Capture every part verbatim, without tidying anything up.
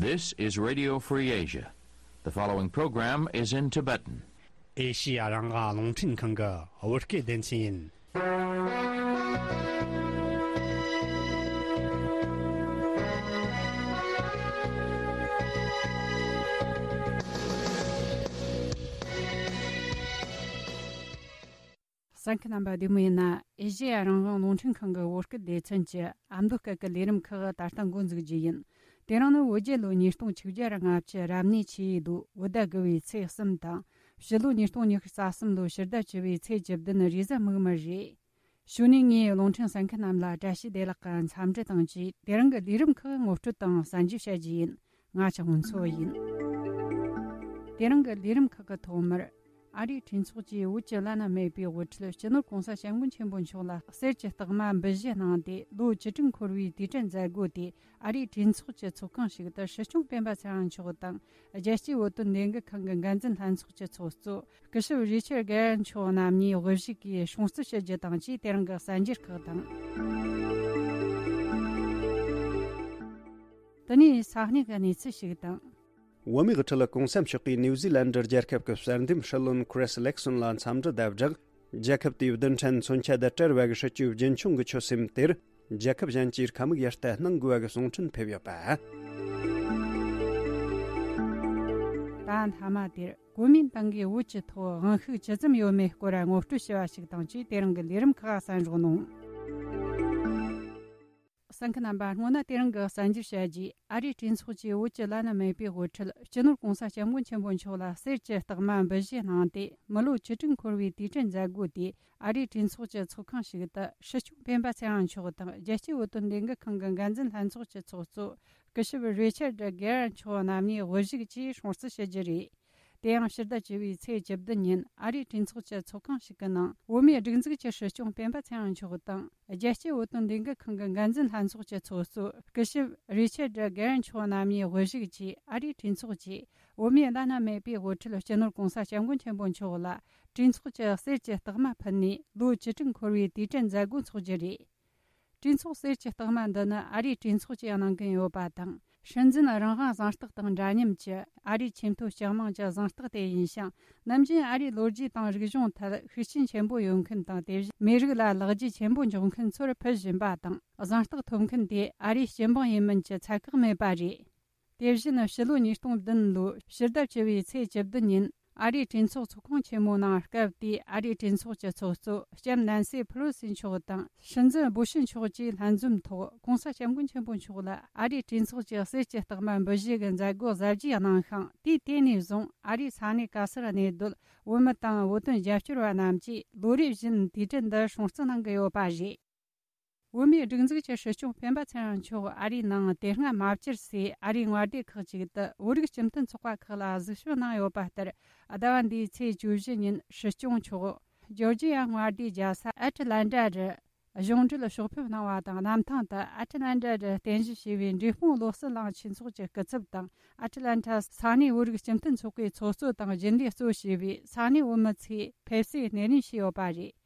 This is Radio Free Asia. The following program is in Tibetan. ཨེ་ཤི་ཡ་རང་དབང་རླུང་འཕྲིན་ཁང་གི་བོད་སྐད་སྡེ་ཚན་ཡིན། གསན་མཁན་རྣམ་པ་བདེ་མོ་ཡིན་ན། ཨེ་ཤེ་ཡ་རང་དབང་རླུང་འཕྲིན་ཁང་གི་བོད་སྐད་སྡེ་ཚན་གྱི་ཨ་མདོ་སྐད་ཀྱི་ལས་རིམ་ཁག་ད་ལྟ་འགོ་འཛུགས་རྒྱུ་ཡིན། དེ་རིང་ནི་བོད་རྒྱལ་ལོ་ཉིས་སྟོང་ཆིག་བརྒྱ་ར་ལྔ་བཅུ་རབ་གནས་ཆུ་ཡོས་ལོ་བོད་ཟླ་དགུ་བའི་ཚེས་གསུམ་དང་། ཕྱི་ལོ་ཉིས་སྟོང་ཉི་ཤུ་རྩ་གསུམ་ལོ་ཕྱི་ཟླ་བཅུ་བའི་ཚེས་བཅུ་བདུན་རེས་གཟའ་མིག་དམར་རེད། གཞུག་ནས་ངས་རླུང་འཕྲིན་གསན་མཁན་རྣམས་ལ་བཀྲ་ཤིས་བདེ་ལེགས་ཀྱི་འཚམས་འདྲི་དང་བཅས་དེ་རིང་གི་ལས་རིམ་ཁག་ངོ་སྤྲོད་དང་གསན་རྒྱབ་བྱ་རྒྱུ་ཡིན། ང་ཆགས་སྔོན་འཚོ་ཡིན། དེ་རིང་གི་ལས་རིམ་ཁག་གི་ཐོག་མར། ཨ་རིའི་གྲོས་ཚོགས་ཀྱིས་བོད་ཀྱི་བླ་ན་མེད་པའི་དབུ་ཁྲིད་སྤྱི་ནོར་༸གོང་ས་༸སྐྱབས་མགོན་ཆེན་པོ་མཆོག་ལ་གསེར་གྱི་རྟགས་མ་འབུལ་བཞེས་གནང་སྟེ། ལོ་བཅུ་དྲུག་འཁོར་བའི་དུས་དྲན་མཛད་སྒོ་དེ་ཨ་རིའི་གྲོས་ཚོགས་ཀྱི་ཚོགས་ཁང་ཞིག་ཏུ་སྲིད་སྐྱོང་སྤེན་པ་ཚེ་རིང་མཆོག་དང་། རྒྱལ་སྤྱིའི་བོད་དོན་ལས་འགུལ་ཁང་གི་འགན་འཛིན་ལྷན་ཚོགས་ཀྱི་ཚོགས་གཙོ་སྐུ་ཞབས་རི་ཆར་གྷེ་རན་མཆོག་རྣམ་གཉིས་དབུ་བཞུགས་ཀྱིས་སྲུང་བརྩི་ཞུ་རྒྱུ་དང་བཅས་དེ་རིང་གི་གསར་འགྱུར་ཁག་དང་། དེ་ནས་ས་གནས་ཀྱི་གནས་ཚུལ་ཞིག་དང་། བོད་མིའི་དབུ་ཁྲིད་༸གོང་ས་མཆོག་གིས་ནིའུ་ཛི་ལན་ཌི་རྒྱལ་ཁབ་ཀྱི་གསར་འདེམས་སྲིད་བློན་ཁི་རིས་ལེག་སོན་ལ་འཚམས་འདྲི་དང་སྦྲགས། རྒྱལ་ཁབ་དེའི་བདུན་ཕྲན་མཚོན་ཆ་དང་བྲལ་བ་གི་སྲིད་ཇུས་རྒྱུན་འཁྱོངས་ཀྱི་ཆོད་སེམས་དེར། རྒྱལ་ཁབ་གཞན་གྱིས་དཀའ་མོས་ཡར་ལྟ་གནང་དགོས་པ་གི་གསུང་འཕྲིན་ཕེབས་ཡོད་པ། ད་མཐའ་མ་དེར་གོ་མིན་ཏང་གིས་བོད་ཀྱི་ཐོག་དབང་ཤུགས་ཇི་ཙམ་ཡོད་མེད་སྐོར་ངོ་སྤྲོད་ཞུ་བ་ཞིག་དང་བཅས་དེ་རིང་གི་ལས་རིམ་ཁག་གསན་རོགས་གནང་། གསན་མཁན་རྣམ་པ། སྔོན་ན་དེ་རིང་གི་གསར་འགྱུར་བཤད་རྗེས། ཨ་རིའི་གྲོས་ཚོགས་ཀྱིས་བོད་ཀྱི་བླ་ན་མེད་པའི་དབུ་ཁྲིད་སྤྱི་ནོར་༸གོང་ས་༸སྐྱབས་མགོན་ཆེན་པོ་མཆོག་ལ་གསེར་གྱི་རྟགས་མ་འབུལ་བཞེས་གནང་སྟེ། མི་ལོ་བཅུ་དྲུག་འཁོར་བའི་དུས་དྲན་མཛད་སྒོ་དེ་ཨ་རིའི་གྲོས་ཚོགས་ཀྱི་ཚོགས་ཁང་ཞིག་ཏུ་སྲིད་སྐྱོང་སྤེན་པ་ཚེ་རིང་མཆོག་དང་། རྒྱལ་སྤྱིའི་བོད་དོན་ལས་འགུལ་ཁང་གི་འགན་འཛིན་ལྷན་ཚོགས་ཀྱི་ཚོགས་གཙོ་སྐུ་ཞབས་རི་ཆར་ཌི་གྷེ་རན་མཆོག་རྣམ་གཉིས་དབུ་བཞུགས་ཀྱིས་སྲུང་བརྩི་ཞུ་རྒྱུ་རེད། དེ་ཡང་ཕྱི་ཟླ་བཅུ་བའི་ཚེས་བཅུ་བདུན་ཉིན་ཨ་རིའི་གྲོས་ཚོགས་ཀྱི་ཚོགས་ཁང་ཞིག་གི་ནང་བོད་མིའི་སྒྲིག་འཛུགས་ཀྱི་སྲིད་སྐྱོང་སྤེན་པ་ཚེ་རིང་མཆོག་དང་། རྒྱལ་སྤྱིའི་བོད་དོན་ལས་འགུལ་ཁང་གི་འགན་འཛིན་ལྷན་ཚོགས་ཀྱི་ཚོགས་གཙོ་སྐུ་ཞབས་རི་ཆར་ཌི་གྷེ་རན་མཆོག་རྣམ་གཉིས་དབུ་བཞུགས་ཀྱིས། ཨ་རིའི་གྲོས་ཚོགས་ཀྱིས་བོད་མིའི་བླ་ན་མེད་པའི་དབུ་ཁྲིད་སྤྱི་ནོར་༸གོང་ས་༸སྐྱབས་མགོན་ཆེན་པོ་མཆོག་ལ་གྲོས་ཚོགས་ཀྱི་གསེར་གྱི་རྟགས་མ་ཕུལ་ནས། ལོ་བཅུ་དྲུག་འཁོར་བའི་དུས་དྲན་མཛད་སྒོ་འཚོགས་རྒྱུ་རེད། གྲོས་ཚོགས་གསེར་གྱི་རྟགས་མ་འདི་ནི་ཨ་རིའི་གྲོས་ཚོགས་ཀྱིས་གནང་གི་ཡོད་པ་དང་། སྲིད་འཛིན་རང་དབང་གཟེངས་རྟགས་དང་འདྲ་མཉམ་གྱི་ཨ་རིའི་ཆེས་མཐོའི་སྤྱི་དམངས་ཀྱི་གཟེངས་རྟགས་དེ་ཡིན་ཞིང་། ནམ་རྒྱུན་ཨ་རིའི་ལོ་རྒྱུས་དང་རིག་གཞུང་ཐད་ཤུགས་རྐྱེན་ཆེན་པོ་ཡོད་མཁན་དང་། དེ་བཞིན་མི་རིགས་ལ་ལེགས་སྐྱེས་ཆེན་པོ་འཇོག་མཁན་ཚོར་ཕུལ་བཞིན་པ་དང་། གཟེངས་རྟགས་ཐོབ་མཁན་དེ་ཨ་རིའི་སྤྱི་འབངས་ཡིན་མིན་གྱི་ཚད་བཀག་མེད་པ་རེད། དེ་བཞིན་ཕྱི་ལོ་ཉིས་སྟོང་བདུན་ལོའི་ཕྱི་ཟླ་བཅུ་བའི་ཚེས་བཅུ་བདུན་ཉིན། ཨ་རིའི་གྲོས་ཚོགས་ཚོགས་ཁང་ཆེན་མོའི་ནང་སྐབས་དེའི་ཨ་རིའི་གྲོས་ཚོགས་ཀྱི་ཚོགས་གཙོ་ལྕམ་ནན་སི་ཕེ་ལོ་སི་མཆོག་དང་། སྲིད་འཛིན་སྦོ་ཤི་མཆོག་བཅས་ལྷན་འཛོམས་ཐོག་༸གོང་ས་༸སྐྱབས་མགོན་ཆེན་པོ་མཆོག་ལ་ཨ་རིའི་གྲོས་ཚོགས་ཀྱི་གསེར་གྱི་རྟགས་མ་འབུལ་བཞེས་ཀྱི་མཛད་སྒོ་གཟབ་རྒྱས་གནང་ཞིང་། དུས་དེ་ནས་བཟུང་ཨ་རིའི་ས་གནས་ག་སར་གནས་སྡོད་བོད་མི་དང་བོད་དོན་རྒྱབ་སྐྱོར་བ་རྣམས་ཀྱིས་ལོ་རེ་བཞིན་དུས་དྲན་འདི་སྲུང་བརྩི་གནང་གི་ཡོད་པ་རེད། བོད་མིའི་སྒྲིག་འཛུགས་ཀྱི་སྲིད་སྐྱོང་སྤེན་པ་ཚེ་རིང་མཆོག་ཨ་རིའི་ནང་དེ་སྔ་མ་བཅར་སའི་ཨ་རིའི་མངའ་སྡེ་ཁག་ཅིག་ཏུ་བོད་རིགས་སྤྱི་མཐུན་ཚོགས་པ་ཁག་ལ་གཟིགས་ཞིབ་གནང་ཡོད་པ་ལྟར། ཟླ་བ་འདིའི་ཚེས་བཅུ་བཞི་ཉིན་སྲིད་སྐྱོང་མཆོག་ཇོར་ཇི་ཡ་མངའ་སྡེའི་རྒྱལ་ས་ཨེ་ཊི་ལན་ཊ་རུ་གཞུང་འབྲེལ་ཕྱོགས་ཕེབས་གནང་བ་དང་། གནམ་ཐང་དུ་ཨེ་ཊི་ལན་ཊ་རུ་རྟེན་གཞི་བྱས་པའི་འབྲས་སྤུངས་བློ་གསལ་གླིང་ཆོས་ཚོགས་ཀྱི་སྐུ་ཚབ་དང་། ཨེ་ཊི་ལན་ཊ་ས་གནས་བོད་རིགས་སྤྱི་མཐུན་ཚོགས་པའི་ཚོགས་གཙོ་དང་རྒྱུན་ལས་གཙོ་བྱས་པའི་ས་གནས་བོད་མི་ཚོས་ཕེབས་བསུའི་སྣེ་ལེན་བྱས་ཡོད་པ་རེད།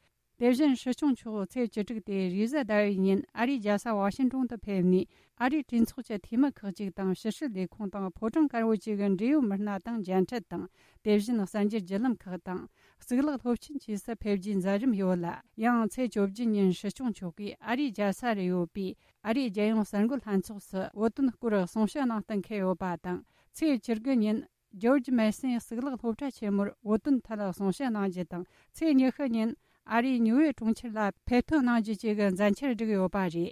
དེ་བཞིན་སྲིད་སྐྱོང་མཆོག་ཚེས་བཅུ་དྲུག་སྟེ་རེས་གཟའ་ཟླ་བའི་ཉིན་ཨ་རིའི་རྒྱལ་ས་ཝ་ཤིང་ཏོན་དུ་ཕེབས་ནས། ཨ་རིའི་གྲོས་ཚོགས་ཀྱི་འཐུས་མི་ཁག་ཅིག་དང་། ཕྱི་སྲིད་ལས་ཁུངས་དང་ཕོ་བྲང་དཀར་པོ་བཅས་ཀྱི་འབྲེལ་ཡོད་མི་སྣ་དང་མཇལ་འཕྲད་དང་། དེ་བཞིན་གསར་འགྱུར་བརྒྱུད་ལམ་ཁག་དང་། གཙུག་ལག་སློབ་ཆེན་བཅས་སུ་ཕེབས་རྒྱུའི་མཛད་རིམ་ཡོད་ལ། ཡང་ཚེས་བཅུ་བཞི་ཉིན་སྲིད་སྐྱོང་མཆོག་གིས་ཨ་རིའི་རྒྱལ་ས་རུ་ཡོད་པའི་ཨ་རིའི་རྒྱལ་ཡོངས་གསར་འགོད་ལྷན་ཚོགས་སུ་བོད་དོན་སྐོར་གསུང་བཤད་གནང་གཏན་འཁེལ་ཡོད་པ་དང་། ཚེས་བཅུ་དགུ་ཉིན་ཇོར་ཇི་མེ་སོན་གཙུག་ལག་སློབ་གྲྭ་ཆེན་མོར་བོད་དོན་ཐད་གསུང་བཤད་གནང་རྒྱུ་དང་། ཚེས་ཉི་ཤུ་ཉིན་ཨ་རིའི་ཉུ་ཡོག་གྲོང་ཁྱེར་ལ་ཕེབས་ཐོན་གནང་རྒྱུ་བཅས་ཀྱི་མཛད་འཆར་བསྒྲིགས་ཡོད་པ་རེད།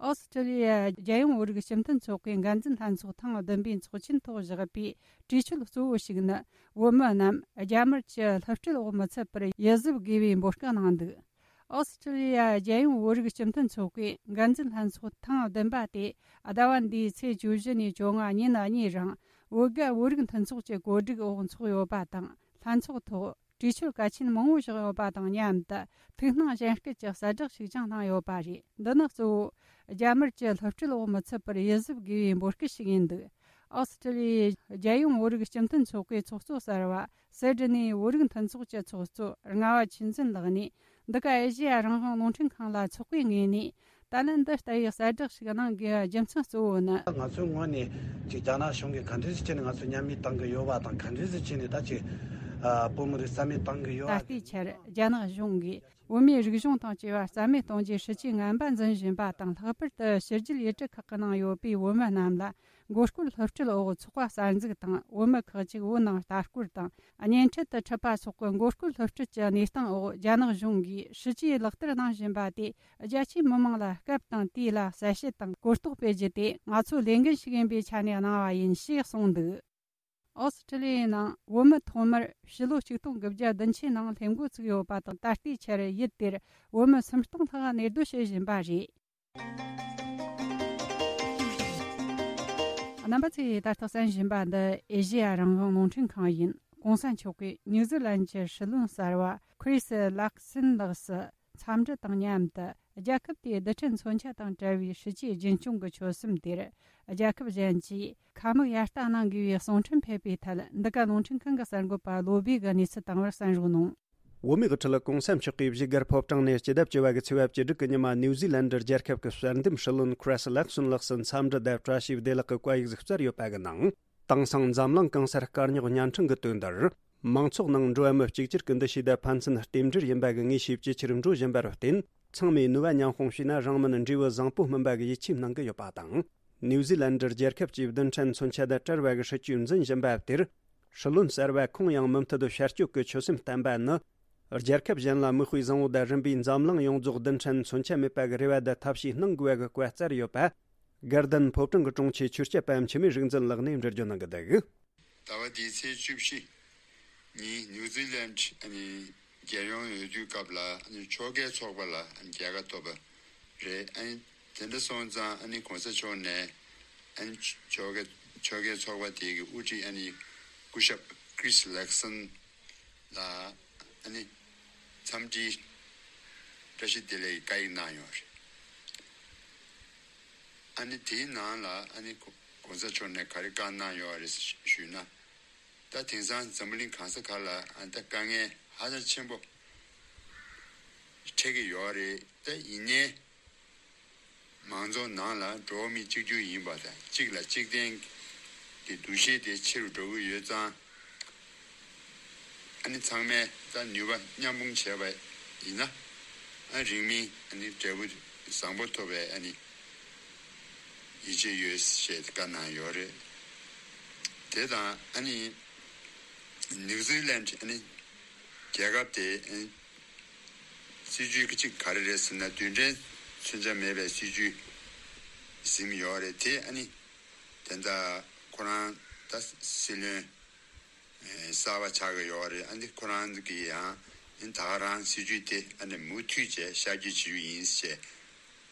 ཨོ་སི་ཀྲི་ལི་ཡ་རྒྱལ་ཡོངས་བོད་རིགས་སྤྱི་མཐུན་ཚོགས་པའི་འགན་འཛིན་ལྷན་ཚོགས་ཐེངས་བདུན་པའི་ཚོགས་ཆེན་ཐོག་བཞག་པའི་གྲོས་ཆོད་གཙོ་བོ་ཞིག་ནི། བོད་མི་རྣམས་རྒྱ་དམར་གྱི་བསླུ་བྲིད་འོག་མི་ཚུད་པར་ཡིད་གཟབ་དགོས་པའི་འབོད་སྐུལ་གནང་འདུག་ཨོ་སི་ཀྲི་ལི་ཡ་རྒྱལ་ཡོངས་བོད་རིགས་སྤྱི་མཐུན་ཚོགས་པའི་འགན་འཛིན་ལྷན་ཚོགས་ཐེངས་བདུན་པ་དེ་ཟླ་བ་འདིའི་ཚེས་བཅུ་བཞི་ནས་བཅོ་ལྔ་ཉིན་གཉིས་རིང་བོད་རྒྱ་བོད་རིགས་མཐུན་ཚོགས་ཀྱི་གོ་སྒྲིག་འོག་འཚོགས་ཡོད་པ་དང་། ལྷན་ཚོགས་ཐོག་གྲོས་ཆོད་གལ་ཆེན་མང་པོ་བཞག་ཡོད་པ་དང་མཉམ་དུ། ཐུགས་སྣང་གཞན་སྐྱེད་ཀྱི་གསལ་བསྒྲགས་ཤིག་ཀྱང་གནང་ཡོད་པ་རེད། འདི་ནི་གཙོ་བོ་རྒྱ་དམར་གྱི་བསླུ་བྲིད་འོག་མི་ཚུད་པར་ཡིད་གཟབ་དགོས་པའི་འབོད་སྐུལ་ཞིག་ཡིན་འདུག་ཨོ་སི་ཀྲི་ལི་ཡའི་རྒྱལ་ཡོངས་བོད་རིགས་སྤྱི་མཐུན་ཚོགས་པའི་ཚོགས་གཙོ་གསར་བ་སི་ཌི་ནི་བོད་རིགས་མཐུན་ཚོགས་ཀྱི་ཚོགས་གཙོ་རྔ་བ་ཆོས་འཛིན་ལགས་ནས། འདི་ག་ཨེ་ཤེ་ཡ་རང་དབང་རླུང་འཕྲིན་ཁང་ལ་ཚོགས་པའི་ངོས་ནས་ ད་ལན་འདི་ལྟ་བུའི་གསལ་བསྒྲགས་ཤིག་གནང་དགོས་པའི་རྒྱུ་མཚན་གཙོ་བོ་ནི། ང་ཚོའི་ངོས་ནས་ཅིག་རྒྱ་ནག་གཞུང་གིས་ག་འདྲ་ཞིག་བྱས་ནས་ང་ཚོ་མཉམ་མེད་གཏང་གི་ཡོད་པ་དང་། ག་འདྲ་ཞིག་བྱས་ནས་ད་ཅིག་ཨ་བོད་མི་རིགས་རྩ་མེད་གཏང་གི་ཡོད་པ། ད་ལྟའི་ཆར་རྒྱ་ནག་གཞུང་གིས་བོད་མིའི་རིག་གཞུང་དང་བཅས་པ་རྩ་མེད་གཏོང་རྒྱུའི་སྲིད་ཇུས་ངན་པ་འཛིན་བཞིན་པ་དང་། ལྷག་པར་དུ་ཕྱི་རྒྱལ་ཡུལ་གྲུ་ཁག་གི་ནང་ཡོད་པའི་བོད་མི་རྣམས་ལ་མགོ་སྐོར་སློབ་ཁྲིད་འོག་ཚོགས་པ་གསར་འཛུགས་དང་། བོད་མི་ཁག་ཅིག་བོད་ནང་ལྟ་སྐོར་དང་། གཉེན་འཕྲད་དུ་ཁྲིད་པ་སོགས་ཀྱི་མགོ་སྐོར་སློབ་ཁྲིད་ཀྱི་གནས་སྟངས་འོག་རྒྱ་ནག་གཞུང་གིས་སྲིད་ཇུས་ལག་བསྟར་གནང་བཞིན་པ་དེ། རྒྱ་ཆེའི་མི་མང་ལ་སྐབས་དང་དུས་ལ་གསལ་བཤད་དང་གོ་རྟོགས་སྤེལ་རྒྱུ་དེ་ང་ཚོའི་ལས་འགན་ཞིག་ཡིན་པའི་ཆ་ནས་གནང་བ་ཡིན་ཞེས་གསུངས་འདུག། ཨོ་སི་ཁྲི་ལི་ཡའི་ནང་བོད་མི་ཐོག་མར་ཕྱི་ལོ་ཆིག་སྟོང་དགུ་བརྒྱ་བདུན་ཅུའི་ནང་སླེབས་འགོ་ཚུགས་ཡོད་པ་དང་། ད་ལྟའི་ཆར་ཡུལ་དེར་བོད་མི་སུམ་སྟོང་ལྷག་གནས་སྡོད་བྱེད་བཞིན་པ་རེད། རྣམ་པ་ཚོས་ད་ལྟ་གསན་བཞིན་པ་འདི་ཨེ་ཤེ་ཡ་རང་དབང་རླུང་འཕྲིན་ཁང་ཡིན། ྋགོང་ས་མཆོག་གིས་ནིའུ་ཛི་ལན་གྱི་སྲིད་བློན་གསར་བ་ཁྲི་སི་ལག་སིན་ལགས་སུ་འཚམས་འདྲི་དང་མཉམ་དུ། རྒྱལ་ཁབ་དེའི་རྡུལ་ཕྲན་མཚོན་ཆ་དང་བྲལ་བའི་སྲིད་ཇུས་རྒྱུན་སྐྱོང་གི་ཆོད་སེམས་དེར། རྒྱལ་ཁབ་གཞན་གྱིས་ཁ་མིག་ཡར་ལྟ་གནང་དགོས་པའི་གསུང་འཕྲིན་ཕེབས་པའི་ཐད། འདི་ག་རླུང་འཕྲིན་ཁང་གི་གསར་འགོད་པ་བློ་བྷེ་གིས་གནས་ཚུལ་བཏང་བར་གསན་རོགས་གནང་། བོད་མིའི་དབུ་ཁྲིད་ྋགོང་ས་མཆོག་གིས་བཞུགས་སྒར་ཕོ་བྲང་ནས་སྤྱི་ཟླ་བཅུ་པ་གི་ཚེས་པ་བཅུ་དྲུག་གི་ཉི་མ། ནིའུ་ཛི་ལན་ཌར་རྒྱལ་ཁབ་ཀྱི་གསར་འདེམས་སྲིད་བློན་ཁྲི་སི་ལག་སོན་ལགས་སུ་འཚམས་འདྲི་དང་བཀྲ་ཤིས་བདེ་ལེགས་ཀྱི་བཀའ་ཡིག་ཟིག་སྩལ་ཡོད་པ་གི་ནང་། དེང་སང་འཛམ་གླིང་གང་སར་དཀའ་རྙོག་བརྙན་འཕྲིན་གྱི་དོན་དུ། མང་ཚོགས་ནང་འགྲོ་བ་མི་གཅིག་གྱུར་གྱི་འདུ་ཤེས་དང་ཕན་ཚུན་རྟེན་འབྲེལ་ཡིན་པ་གི་ངེས་ཤེས་ཇེ་ཆེར་འགྲོ་བཞིན་པར་བརྟེན། ཚང་མས་ནུས་པ་མཉམ་སྤུངས་བྱས་ན་རང་མིན་འབྲས་བུ་བཟང་པོ་སྨིན་པ་གི་ཡིད་ཆེས་གནང་གི་ཡོད་པ་དང་། ནིའུ་ཛི་ལན་ཌར་རྒྱལ་ཁབ་ཀྱིས་རྡུལ་ཕྲན་མཚོན་ཆ་དང་བྲལ་བ་གི་སྲིད་ཇུས་འཛིན་བཞིན་པ་དེར། སྲིད་བློན་གསར་བ་ཁོང་ཡང་མུ་མཐུད་དུ་ཞལ་སྐྱོད་ཀྱི་ཆོད་སེམས་བསྟན་པ་ནི། རྒྱལ་ཁབ་གཞན་ལ་མིག་དཔེ་བཟང་བོ་དང་། རིམ་པས་འཛམ་གླིང་ཡོངས་རྫོགས་རྡུལ་ཕྲན་མཚོན་ཆ་མེད་པ་གི་རེ་བ་དང་ཐབས་ཤེས་གནང་དགོས་པ་གི་བཀའ་སྩལ་ཡོད་པ། དགའ་ལྡན་ཕོ་བྲང་གི་དྲུང་ཆེ་ཆོས་སྐྱབས་པ་འཆི་མེད་རིག་འཛིན་ལགས་ནས་འགྲེལ་བརྗོད་གནང་གི་འདུག། ཟླ་བ་འདིའི་ཚེས་བཅུ་བཞི་ཉིན་ནིའུ་ཛི་ལན་ཨ་ནི་རྒྱལ་ཡོངས་འོས་བསྡུའི་སྐབས་ལ་ཨ་ནི་ཕྱོགས་འགལ་ཚོགས་པ་ལ་ཨ་ནི་རྒྱལ་ཁ་ཐོབ་པ་རེད། ཨ་ནི་དེ་འདྲ་སོང་ཙང་ཨ་ནི་གོང་ས་མཆོག་ནས་ཨ་ནི་ཕྱོགས་འགལ་ཕྱོགས་འགལ་ཚོགས་པ་དེ་གི་དབུ་ཁྲིད་ཨ་ནི་སྐུ་ཞབས་ཁྲི་སི་ལག་སན་ལ་ཨ་ནི་འཚམས་འདྲིའི་བཀྲ་ཤིས་བདེ་ལེགས་ཀྱི་བཀའ་ཡིག་གནང་ཡོད་རེད། ཨ་ནི་དེའི་ནང་ལ་ཨ་ནི་གོང་ས་མཆོག་ནས་ག་རེ་བཀའ་གནང་ཡོད་རེད་ཞུས་ན། ད་དེང་སང་འཛམ་བུ་གླིང་གང་ས་ག་ལ་ཨ་ནི་ད་དཀའ་ངལ་ཧ་ཅང་ཆེན་པོ་འཕྲད་ཀྱི་ཡོད་རེད། ད་ཡིན་ནའི་མང་ཚོགས་ནང་ལ་འགྲོ་བ་མི་གཅིག་གྱུར་ཡིན་པ་དང་། གཅིག་ལ་གཅིག་བརྟེན་གྱི་འདུ་ཤེས་དེ་ཆེ་རུ་འགྲོ་གི་ཡོད་ཙང་། ཨ་ནི་ཚང་མས་ད་ནུས་པ་མཉམ་སྤུངས་བྱས་པ་ཡིན་ན། ཨ་རིང་མིན་ཨ་ནི་འབྲས་བུ་བཟང་པོ་ཐོབ་པའི་ཨ་ནི་ཡིད་ཆེས་ཡོད་ཞེས་བཀའ་གནང་ཡོད་རེད། དེ་དང་ཨ་ནི་ནིའུ་ཛི་ལན་ཨ་ནི་རྒྱལ་ཁབ་དེ་ཨ་ནི་སྲིད་ཇུས་གཅིག་ག་རེ་རེད་ཟེར་ན། རྡུལ་ཕྲན་མཚོན་ཆ་མེད་པའི་སྲིད་ཇུས་ཟིན་ཡོད་རེད། དེ་ཨ་ནི་དེ་འདྲ་ཁོ་རང་ད་སྲིད་བློན་གསར་པ་ཆགས་ཀྱི་ཡོད་རེད། ཨ་ནི་ཁོ་རང་གིས་ཡང་ཨ་ནི་ད་ག་རང་སྲིད་ཇུས་དེ་ཨ་ནི་མུ་མཐུད་བྱས་ཤར་བསྐྱོད་བྱེད་རྒྱུ་ཡིན་ཞེས་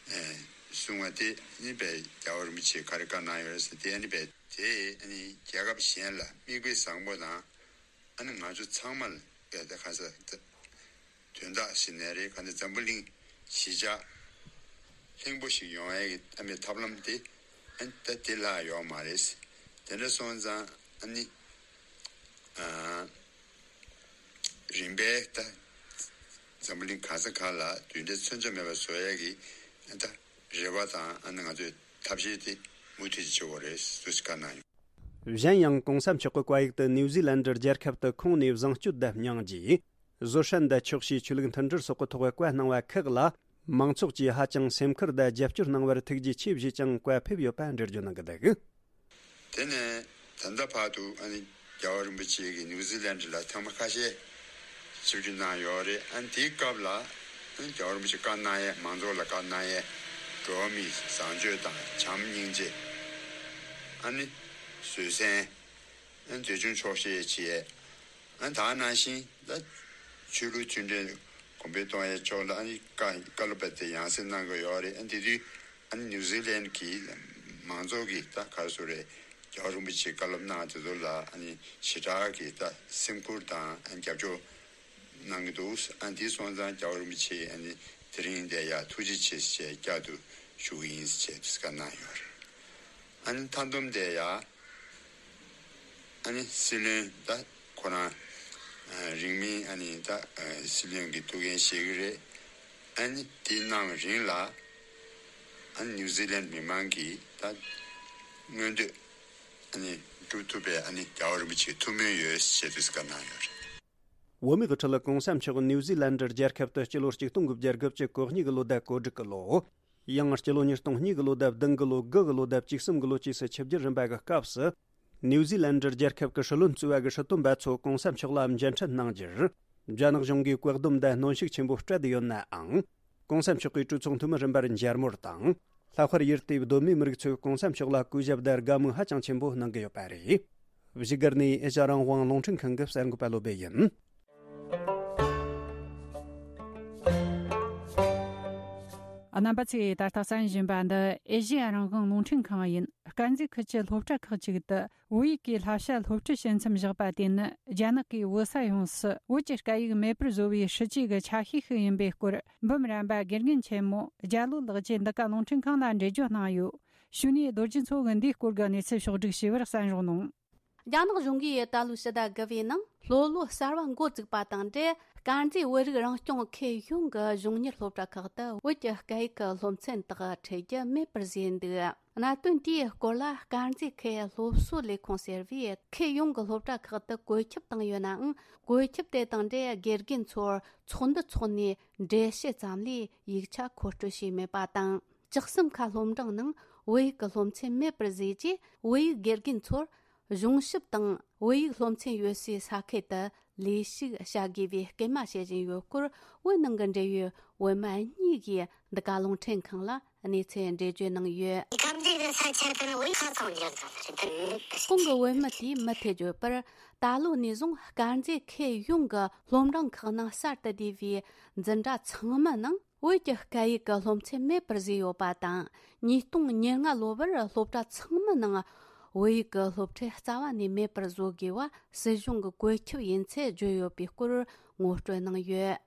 གསུངས་པ་དེ་ཨ་ནི་དཔེ་རྒྱལ་བ་རིན་པོ་ཆེས་ག་རེ་བཀའ་གནང་ཡོད་རེད་ཟེར། དེ་ཨ་ནི་དཔེ་དེས་ཨ་ནི་རྒྱལ་ཁབ་གཞན་ལ་མིག་དཔེ་བཟང་པོ་དང་། ཨ་ནི་ང་ཚོ་ཚང་མ་ལ་དཔེ་ད་ག་ས་ད་དོན་དག་ཞིག་ནས་རེད། ག་ནས་འཛམ་བུ་གླིང་གཞིས་ཆགས་ལྷིང་པོ་ཞིག་ཡོང་ཡས་ཀྱི་ཨ་མའི་ཐབས་ལམ་དེ་ཨ་ནི་ད་དེ་ལྷག་ཡོད་མ་རེད། དེ་འདྲ་སོང་ཙང་ཨ་ནི་ཨ་རིམ་པས་ད་འཛམ་བུ་གླིང་ག་ས་ག་ལ་རྡུལ་ཕྲན་མཚོན་ཆ་མེད་པ་བཟོ་ཡས་ཀྱི་ཨ་ད་རེ་བ་དང་། ཨ་ནི་ང་ཚོས་ཐབས་ཤེས་དེ་མུ་མཐུད་བྱེད་དགོས་རེད་ཟེར་བཀའ་གནང་ཡོད། གཞན་ཡང་གོང་ས་མཆོག་གི་བཀའ་ཡིག་ཏུ་ནིའུ་ཟི་ལན་ཌར་རྒྱལ་ཁབ་ཏུ་ཁོང་ནས་བཟང་སྤྱོད་དང་སྙིང་རྗེ། བཟོད་བསྲན་དང་ཆོག་ཤེས། ཆོས་ལུགས་མཐུན་སྒྲིལ་སོགས་ཀྱི་ཐོག་བཀའ་གནང་བ་ཁག་ལ། མང་ཚོགས་ཀྱིས་ཧ་ཅང་སེམས་ཁུར་དང་རྒྱབ་སྐྱོར་གནང་བར་ཐུགས་རྗེ་ཆེ་བཞེས་ཀྱང་བཀའ་ཕེབས་ཡོད་པ་འགྲེལ་བརྗོད་གནང་གི་འདུག། དེ་ནས་ད་ལྟ་བར་དུ་ཨ་ནི་རྒྱལ་བ་རིན་པོ་ཆེ་གིས་ནིའུ་ཛི་ལན་ཌི་ལ་ཐེངས་མ་ཁ་ཤས་ཆིབས་བསྒྱུར་གནང་ཡོད་རེད། ཨ་ནི་དེའི་སྐབས་ལ་ཨ་ནི་རྒྱལ་བ་རིན་པོ་ཆེ་བཀའ་གནང་ཡས། མང་ཚོགས་ལ་བཀའ་གནང་ཡས། འགྲོ་བ་མིའི་བཟང་སྤྱོད་དང་བྱམས་སྙིང་རྗེ། ཨ་ནི་བཟོད་བསྲན། ཨ་ནི་འཛིན་སྐྱོང་ཆོག་ཤེས་བྱེད་ཡས། ཨ་ནི་ད་ག་ནང་བཞིན་ད་ཆོས་ལུགས་མཐུན་སྒྲིལ་གོང་འཕེལ་གཏོང་ཡས་ཕྱོགས་ལ་ཨ་ནི་བཀའ་བཀའ་སློབ་དཔེ་དེ་ཡང་སེ་གནང་གི་ཡོད་རེད། ཨ་ནི་དེ་དུས་ཨ་ནི་ནིའུ་ཛི་ལན་གྱི་མང་ཚོགས་ཀྱིས་ད་ག་རེ་ཟེར་རེད། རྒྱལ་བ་རིན་པོ་ཆེས་བཀའ་སློབ་གནང་དེ་ཚོ་ལ་ཨ་ནི་ཞེ་དྲག་གི་ད་སེམས་ཁུར་དང་ཨ་ནི་རྒྱབ་སྐྱོར་གནང་གི་འདུག། ཨ་ནི་དེ་སོང་ཙང་རྒྱལ་བ་རིན་པོ་ཆེས་ཨ་ནི་དེ་རིང་འདིར་ཡ་ཐུགས་རྗེ་ཆེ་ཞེས་བསྐྱར་དུ་ཞུ་གི་ཡིན་ཞེས་བཀའ་གནང་ཡོད་རེད། ཨ་ནི་མཐའ་བསྡོམས་དེ་ཡ། ཨ་ནི་སྲིད་བློན་ད་ཁོ་རང་ཨ་རིང་མིན་ཨ་ནི་ད་ཨ་སྲིད་བློན་གྱི་ཐུགས་འགན་བཞེས་ཀྱི་རེད། ཨ་ནི་དེ་གནང་རིང་ལ་ ཨ་ནི་ནིའུ་ཛི་ལན་མི་མང་གིས་ད་མངོན་འདོད་ཨ་ནི་སྒྲུབ་ཐུབ་པའི་ཨ་ནི་རྒྱལ་བ་རིན་པོ་ཆེའི་ཐུགས་སྨོན་ཡོད་ཞེས་དུས་བཀའ་གནང་ཡོད་རེད། བོད་མིའི་དབུ་ཁྲིད་གོང་ས་མཆོག་ནིའུ་ཛི་ལན་འདྲ་རྒྱལ་ཁབ་ཏུ་སྤྱི་ལོ་ཆིག་སྟོང་དགུ་བརྒྱ་དགུ་བཅུ་གོ་གཉིས་ཀྱི་ལོ་ཟླ་གོ་དྲུག་གི་ལོ། ཡང་སྤྱི་ལོ་ཉིས་སྟོང་གཉིས་ཀྱི་ལོ་ཟླ་བདུན་གྱི་ལོ་དགུ་གི་ལོ་ཟླ་བཅུ་གསུམ་གྱི་ལོ་བཅས་སུ་ཆིབས་བསྒྱུར་རིམ་པ་གི་སྐབས་སུ། ནིའུ་ཛི་ལན་འདྲ་རྒྱལ་ཁབ་ཀྱི་སྲིད་བློན་གཙོས་པ་གི་སྲིད་དོན་པ་ཚོ་གོང་ས་མཆོག་ལ་མཇལ་འཕྲད་གནང་རྒྱུར། རྒྱ་ནག་གཞུང་གིས་བཀག་སྡོམ་དང་གནོན་ཤུགས་ཆེན་པོ་སྤྲད་དེ་ཡོད་ནའང་། གོང་ས་མཆོག་གིས་གྲོས་ཚོགས་འཐུས་མི་རིམ་པར་མཇལ་མོལ་དང་། ལྷག་པར་ཡུལ་དེའི་གདོད་མའི་མི་རིགས་ཚོས་གོང་ས་མཆོག་ལ་གུས་ཞབས་དང་དགའ་མོས་ཧ་ཅང་ཆེན་པོ་གནང་གི་ཡོད་པ་རེད། བཞུགས་སྒར་ནས་ཨེ་ཤ་རང་དབང་རླུང་འཕྲིན་ཁང་གི་གསར་འགོད་པ་བློ་བྷེ་ཡིན། རྣམ་པ་ཚོས་ད་ལྟ་གསན་བཞིན་པ་འདི་ཨེ་ཤེ་ཡ་རང་དབང་རླུང་འཕྲིན་ཁང་ཡིན། དཀར་མཛེས་ཁུལ་གྱི་སློབ་གྲྭ་ཁག་ཅིག་ཏུ་བོད་ཡིག་གི་བསླབ་བྱ་སློབ་ཁྲིད་བྱེད་མཚམས་བཞག་པ་དེ་ནི་རྒྱ་ནག་གིས་བོད་ས་ཡོངས་སུ་བོད་ཀྱི་སྐད་ཡིག་མེད་པར་བཟོ་བའི་སྲིད་ཇུས་ཀྱི་ཆ་ཤས་ཤིག་ཡིན་པའི་སྐོར། འབུམ་རམས་པ་དགེ་རྒན་ཆེན་མོ་རྒྱ་ལོ་ལགས་ཀྱིས་འདི་ག་རླུང་འཕྲིན་ཁང་ལ་འགྲེལ་བརྗོད་གནང་ཡོད། གཞུག་ནས་རྡོ་རྗེ་མཚོ་གིས་འདིའི་སྐོར་གྱི་གནས་ཚུལ་ཕྱོགས་བསྒྲིགས་བྱས་པར་གསན་རོགས་གནང་། རྒྱ་ནག་གཞུང་གིས་ད་ལོའི་ཕྱི་ཟླ་དགུ་པའི་ནང་སློབ་ལོ་གསར་བ་འགོ་བཙུགས་པ་དང་འབྲེལ། དཀར་མཛེས་བོད་རིགས་རང་སྐྱོང་ཁུལ་ཡོངས་ཀྱི་གཞུང་གཉེར་སློབ་གྲྭ་ཁག་ཏུ་བོད་ཀྱི་སྐད་ཡིག་གི་སློབ་ཚན་དག་ཁྲིད་རྒྱུ་མེད་པར་བཟོས་འདུག་གནད་དོན་དེའི་སྐོར་ལ་དཀར་མཛེས་ཁུལ་སློབ་གསོ་ལས་ཁུངས་ཟེར་བས་ཁུལ་ཡོངས་ཀྱི་སློབ་གྲྭ་ཁག་ཏུ་བཀོད་ཁྱབ་བཏང་ཡོད་ནའང་། བཀོད་ཁྱབ་དེ་དང་འབྲེལ་དགེ་རྒན་ཚོར་ཚོགས་འདུ་འཚོགས་ནས་འགྲེལ་བཤད་ཙམ་ལས་ཡིག་ཆ་མཁོ་སྤྲོད་བྱས་མེད་པ་དང་། བཅུ་གསུམ་ཀ་སློབ་འབྲིང་ནང་བོད་ཡིག་གི་སློབ་ཚན་མེད་པར་བཟོས་རྗེས། བོད་ཡིག་དགེ་རྒན་ཚོར་གཞུང་ཞབས་དང་བོད་ཡིག་སློབ་ཚན་ཡོད་སའི་ས་ཁུལ་དུ་ལས་ཞུགས་བྱ་དགོས་པའི་སྐུལ་མ་བྱེད་བཞིན་ཡོད་སྐོར། བོད་ནང་གི་འབྲེལ་ཡོད་བོད་མི་གཉིས་ཀྱིས་འདི་ག་རླུང་འཕྲིན་ཁང་ལ་གནས་ཚུལ་འགྲེལ་བརྗོད་གནང་ཡོད། གང་གི་བོད་མི་དེས་མུ་མཐུད་ནས་བོད་ཡིག་སློབ་ཚན་བརྗོད་པར། ད་ལོ་ནས་བཟུང་དཀར་མཛེས་ཁུལ་ཡོངས་ཀྱི་སློབ་འབྲིང་ཁག་ནང་གསར་དུ་བསྡུས་པའི་འཛིན་གྲྭ་ཚང་མའི་ནང་བོད་ཀྱི་སྐད་ཡིག་གི་སློབ་ཚན་མེད་པར་བཟོས་ཡོད་པ་དང་། ཉིས་སྟོང་ཉེར་ལྔ་ལོ་བར་སློབ་གྲྭ་ཚང་མའི་ནང་བོད་ཡིག་གི་སློབ་ཁྲིད་རྩ་བ་ནས་མེད་པར་བཟོ་དགོས་པ་སྲིད་གཞུང་གི་བཀོད་ཁྱབ་ཡིན་ཚུལ་བརྗོད་ཡོད་པའི་སྐོར་ངོ་སྤྲོད་གནང་ཡོད།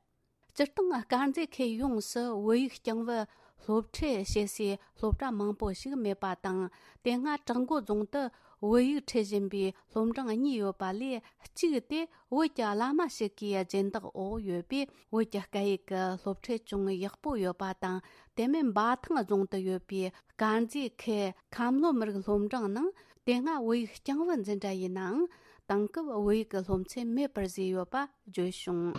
སྤྱིར་བཏང་དཀར་མཛེས་ཁུལ་ཡོངས་སུ་བོད་ཡིག་རྐྱང་བུ་སློབ་ཁྲིད་བྱེད་སའི་སློབ་གྲྭ་མང་པོ་ཞིག་མེད་པ་དང་། དེ་སྔ་བྲག་འགོ་རྫོང་དུ་བོད་ཡིག་ཁྲིད་བཞིན་པའི་སློབ་འབྲིང་གཉིས་ཡོད་པ་ལས། གཅིག་དེ་བོད་ཀྱི་བླ་མ་ཞིག་གི་སྦྱིན་བདག་འོག་ཡོད་པས། བོད་ཀྱི་སྐད་ཡིག་གི་སློབ་ཁྲིད་ཅུང་ཡག་པོ་ཡོད་པ་དང་། དེ་མིན་འབའ་ཐང་རྫོང་དུ་ཡོད་པའི་དཀར་མཛེས་ཁུལ་ཁམས་ལྷོ་མི་རིགས་སློབ་འབྲིང་ནང་དེ་སྔ་བོད་ཡིག་རྐྱང་བུ་འཛིན་གྲྭ་ཡིན་ནའང་། དེང་སྐབས་བོད་ཡིག་གི་སློབ་ཚན་མེད་པར་བཟོས་ཡོད་པ་བརྗོད་བྱུང་།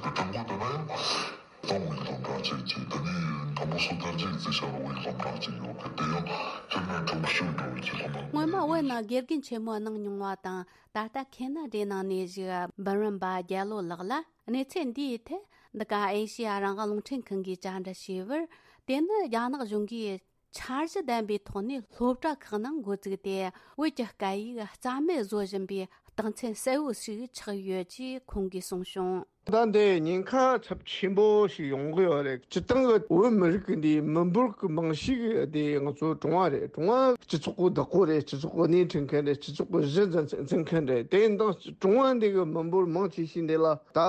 སྔོན་མ་བོད་ནང་དགེ་རྒན་ཆེན་མོ་གནང་མྱོང་བ་དང་། ད་ལྟ་ཁེ་ན་ཌའི་ནང་གནས་བཞུགས་འབུམ་རམས་པ་རྒྱལ་ལོ་ལགས་ལ། གནས་ཚུལ་འདིའི་ཐད་འདི་ག་ཨེ་ཤེ་ཡ་རང་དབང་རླུང་འཕྲིན་ཁང་གིས་བཅར་འདྲི་བྱས་པར། དེ་ནི་རྒྱ་ནག་གཞུང་གིས་འཆར་གཞི་ལྡན་པའི་ཐོག་ནས་སློབ་གྲྭ་ཁག་ནང་འགོ་བཙུགས་ཏེ། བོད་ཀྱི་སྐད་ཡིག་རྩ་མེད་བཟོ་བཞིན་པའི་རྟགས་མཚན་གསལ་བོ་ཞིག་ཆགས་ཡོད་ཅེས་ཁོང་གིས་གསུངས་བྱུང་། ད་འདི་ཉེན་ཁ་ཚབས་ཆེན་པོ་ཞིག་ཡོང་གི་ཡོད་རེད། སྤྱིར་བཏང་གི་བོད་མི་རིགས་ཀྱི་འདིའི་མི་འབོར་གྱི་མང་ཤོས་ཀྱི་དེ་ང་ཚོ་གྲོང་བ་རེད། གྲོང་བ་སྤྱི་ཚོགས་ཀྱི་བདག་པོ་རེད། སྤྱི་ཚོགས་ཀྱི་སྣེ་ཁྲིད་མཁན་རེད། སྤྱི་ཚོགས་ཀྱི་གཞི་འཛིན་འཛིན་མཁན་རེད། དེ་ཡིན་དང་གྲོང་བ་འདི་གི་མི་འབོར་མང་ཆེ་ཤོས་འདི་ལ་ད་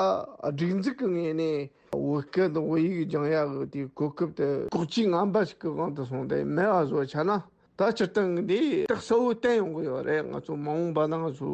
སྒྲིག་འཛུགས་ཀྱི་ངོས་ནས། བོད་སྐད་དང་བོད་ཡིག་སྦྱང་ཡག་གི་དེའི་གོ་སྐབས་དེ་ལྐོག་ཇུས་ངན་པ་ཞིག་གི་དབང་དུ་སོང་སྟེ་མེད་པ་བཟོ་བྱས་ན། ད་སྤྱིར་བཏང་གི་འདི་རྟགས་གསལ་བོ་བསྟན་ཡོང་གི་ཡོད་རེད། ང་ཚོ་མ་འོངས་པ་ན་ང་ཚོ་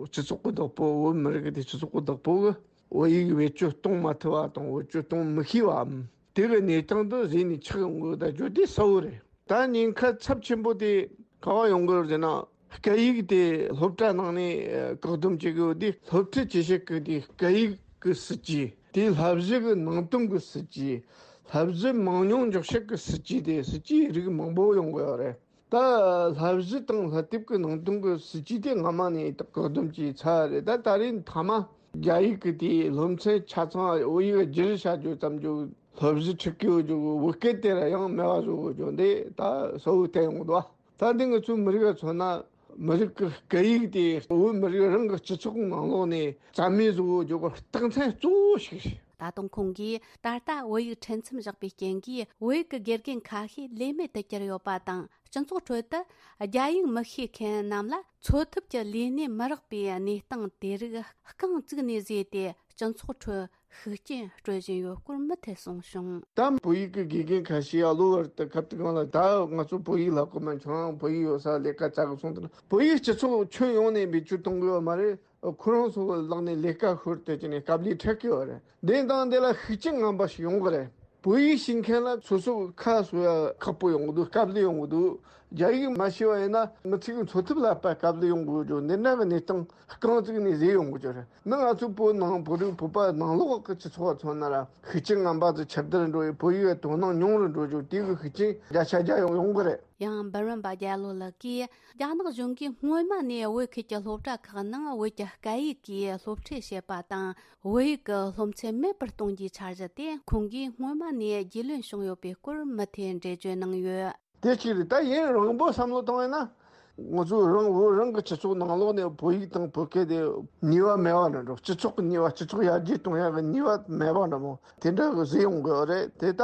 སྤྱི་ཚོགས་ཀྱི་བདག་པོ། བོད་མི་རིགས་ཀྱི་དེ་སྤྱི་ཚོགས་ཀྱི་བདག་པོ་གི་བོད་ཡིག་བེད་སྤྱོད་གཏོང་མ་ཐུབ་པ་དང་། བེད་སྤྱོད་གཏོང་མི་ཤེས་པའམ། དེ་གི་གནས་སྟངས་དེ་གཞི་ནས་ཆགས་ཡོང་གི་ཡོད། ད་བརྗོད་དེ་གསལ་བོ་རེད། ད་ཉེན་ཁ་ཚབས་ཆེན་པོ་དེ་ག་པར་ཡོང་གི་ཡོད་ཟེར་ན། སྐད་ཡིག་དེ་སློབ་གྲྭ་ནང་ནས་བཀག་སྡོམ་བྱེད་ཀྱི་ཡོད་དུས། སློབ་ཁྲིད་བྱེད་བྱེད་ཀྱི་དེ་སྐད་ཡིག་གི་སྲིད་ཇུས། དེའི་བསླབ་གཞི་གི་ནང་དོན་གྱི་སྲིད་ཇུས། བསླབ་གཞི་མང་ཉུང་འཇོག་བྱེད་ཀྱི་སྲིད་ཇུས། དེ་སྲིད་ཇུས་རིགས་མང་པོ་ཡོང་གི་ཡོད་རེད། ད་བསླབ་གཞི་དང་བསླབ་དེབ་ཀྱི་ནང་དོན་གྱི་སྲིད་ཇུས་དེ་སྔ་མ་ནས་བཀག་སྡོམ་བྱས་ཚར་རེད། ད་ད་རེས་མཐའ་མ་རྒྱ་ཡིག་གི་དེའི་སློབ་ཚན་ཆ་ཚང་བོད་ཡིག་བསྒྱུར་བྱ་རྒྱུ་ཙམ་གྱི་སློབ་གཞི་ཁྲིད་ཀྱི་ཡོད་རྒྱུ་གི་བོད་སྐད་དེ་ར་ཡང་མེད་པ་བཟོ་གི་ཡོད་རྒྱུ་འདི་ད་གསལ་བོ་བསྟན་ཡོང་གི་འདུག་ད་འདི་ང་ཚོའི་མི་རིགས་ལ་མཚོན་ན། མི་རིགས་ཀྱི་སྐད་ཡིག་དེ་བོད་མི་རིགས་རང་གི་སྤྱི་ཚོགས་ནང་ལོགས་ནས་རྩ་མེད་བཟོ་དགོས་རྒྱུ་གི་རྟགས་མཚན་གཙོ་བོ་ཞིག་རེད། ད་དུང་ཁོང་གིས་ད་ལྟ་བོད་ཡིག་ཁྲིད་མཚམས་བཞག་པའི་རྐྱེན་གྱིས། བོད་ཡིག་གི་དགེ་རྒན་ཁ་ཤས་ལས་མེད་དུ་གྱུར་ཡོད་པ་དང་། སྤྱི་ཚོགས་ཁྲོད་དུ་རྒྱ་ཡིག་མི་ཤེས་མཁན་རྣམས་ལ་འཚོ་ཐབས་ཀྱི་ལས་གནས་མི་རག་པའི་གནས་སྟངས་དེ་རིགས་རྐང་བཙུགས་ནས་བཟོས་ཏེ། སྤྱི་ཚོགས་ཁྲོད་ཤུགས་རྐྱེན་སྤྲོད་བཞིན་ཡོད་སྐོར་མུ་མཐུད་གསུངས་བྱུང་། ད་བོད་ཡིག་གི་དགེ་རྒན་ཁ་ཤས་ཨ་ལོ་བར་དུ་ཁ་བཏུག་གང་ལ། ད་ང་ཚོ་བོད་ཡིག་བསླབ་གི་མ། ཁྱོད་རང་བོད་ཡིག་ཡོད་ས་ལས་ཀ་བཙལ་གི་སོང་དུས་ན། བོད་ཡིག་སྤྱི་ཚོགས་ཁྱོན་ཡོངས་ནས་བེད་སྤྱོད་གཏོང་གི་ཡོད་མ་རེད། ཁོ་རང་ཚོ་གི་ལག་ནས་ལས་ཀ་ཤོར་ཏེ་ཅི་ནས་དཀའ་ལས་འཕྲད་ཀྱི་ཡོད་རེད། དེ་དང་དེ་ལ་ཤུགས་རྐྱེན་ངན་པ་ཞིག་ཡོང་གི་རེད། བོད་ཡིག་ཤེས་མཁན་ལ་སོ་སོ་ཁ་གསོ་ཡ་ཁག་པོ་ཡོང་གི་འདུག་དཀའ་ལས་ཡོང་གི་འདུག་རྒྱ་ཡིག་མ་ཤེས་པ་ཡིན་ན་མི་ཚེ་གི་འཚོ་ཐབས་ལ་དཔེ་དཀའ་ལས་ཡོང་གི་ཡོད་ཅོ། འདི་འདྲ་གི་གནས་སྟངས་རྐང་བཙུགས་ནས་བཟོས་ཡོང་གི་ཅོ་རེད། ནི་ང་ཚོ་བོད་ནང་བོད་རིགས་བོད་པ་ནང་ལོགས་ཀྱི་སྤྱི་ཚོགས་མཚོན་ན་ར་ཤུགས་རྐྱེན་ངན་པ་ཚོ་ཁྱབ་གདལ་འགྲོ་ཡི། བོད་ཡིག་དོ་སྣང་ཉུང་རུ་འགྲོ་ཅོ། དེ་གི་ཤུགས་རྐྱེན་བརྒྱ་ཆ་བརྒྱ་ཡོང་ཡོང་གི་རེད། ཡང་འབུམ་རམས་པ་རྒྱལ་ལོ་ལགས་ཀྱིས། རྒྱ་ནག་གཞུང་གིས་སྔོན་མ་ནས་བོད་ཁུལ་གྱི་སློབ་གྲྭ་ཁག་ནང་བོད་ཀྱི་སྐད་ཡིག་གིས་སློབ་ཁྲིད་བྱེད་པ་དང་། བོད་ཡིག་གི་སློབ་ཚན་མེད་པར་གཏོང་རྒྱུའི་འཆར་གཞི་དེ་ཁོང་གིས་སྔོན་མ་ནས་རྒྱུས་ལོན་བྱུང་ཡོད་པའི་སྐོར་མུ་མཐུད་འགྲེལ་བརྗོད་གནང་ཡོད། དེ་གཅིག་རེད། ད་ཡུན་རིང་པོ་བསམ་བློ་བཏང་ཡོད་ན། ང་ཚོ་རང་བོད་རང་གི་སྤྱི་ཚོགས་ནང་ལོགས་ནས་བོད་ཡིག་དང་བོད་སྐད་དེ་ནུས་པ་མེད་པ་འདྲ་འགྲོ། སྤྱི་ཚོགས་ཀྱི་ནུས་པ་སྤྱི་ཚོགས་ཡར་རྒྱས་གཏོང་ཡག་གི་ནུས་པ་མེད་པ་འདྲ་མོ་དེ་འདྲ་གི་བཟོས་ཡོང་གི་ཡོད་རེད། དེ་ད་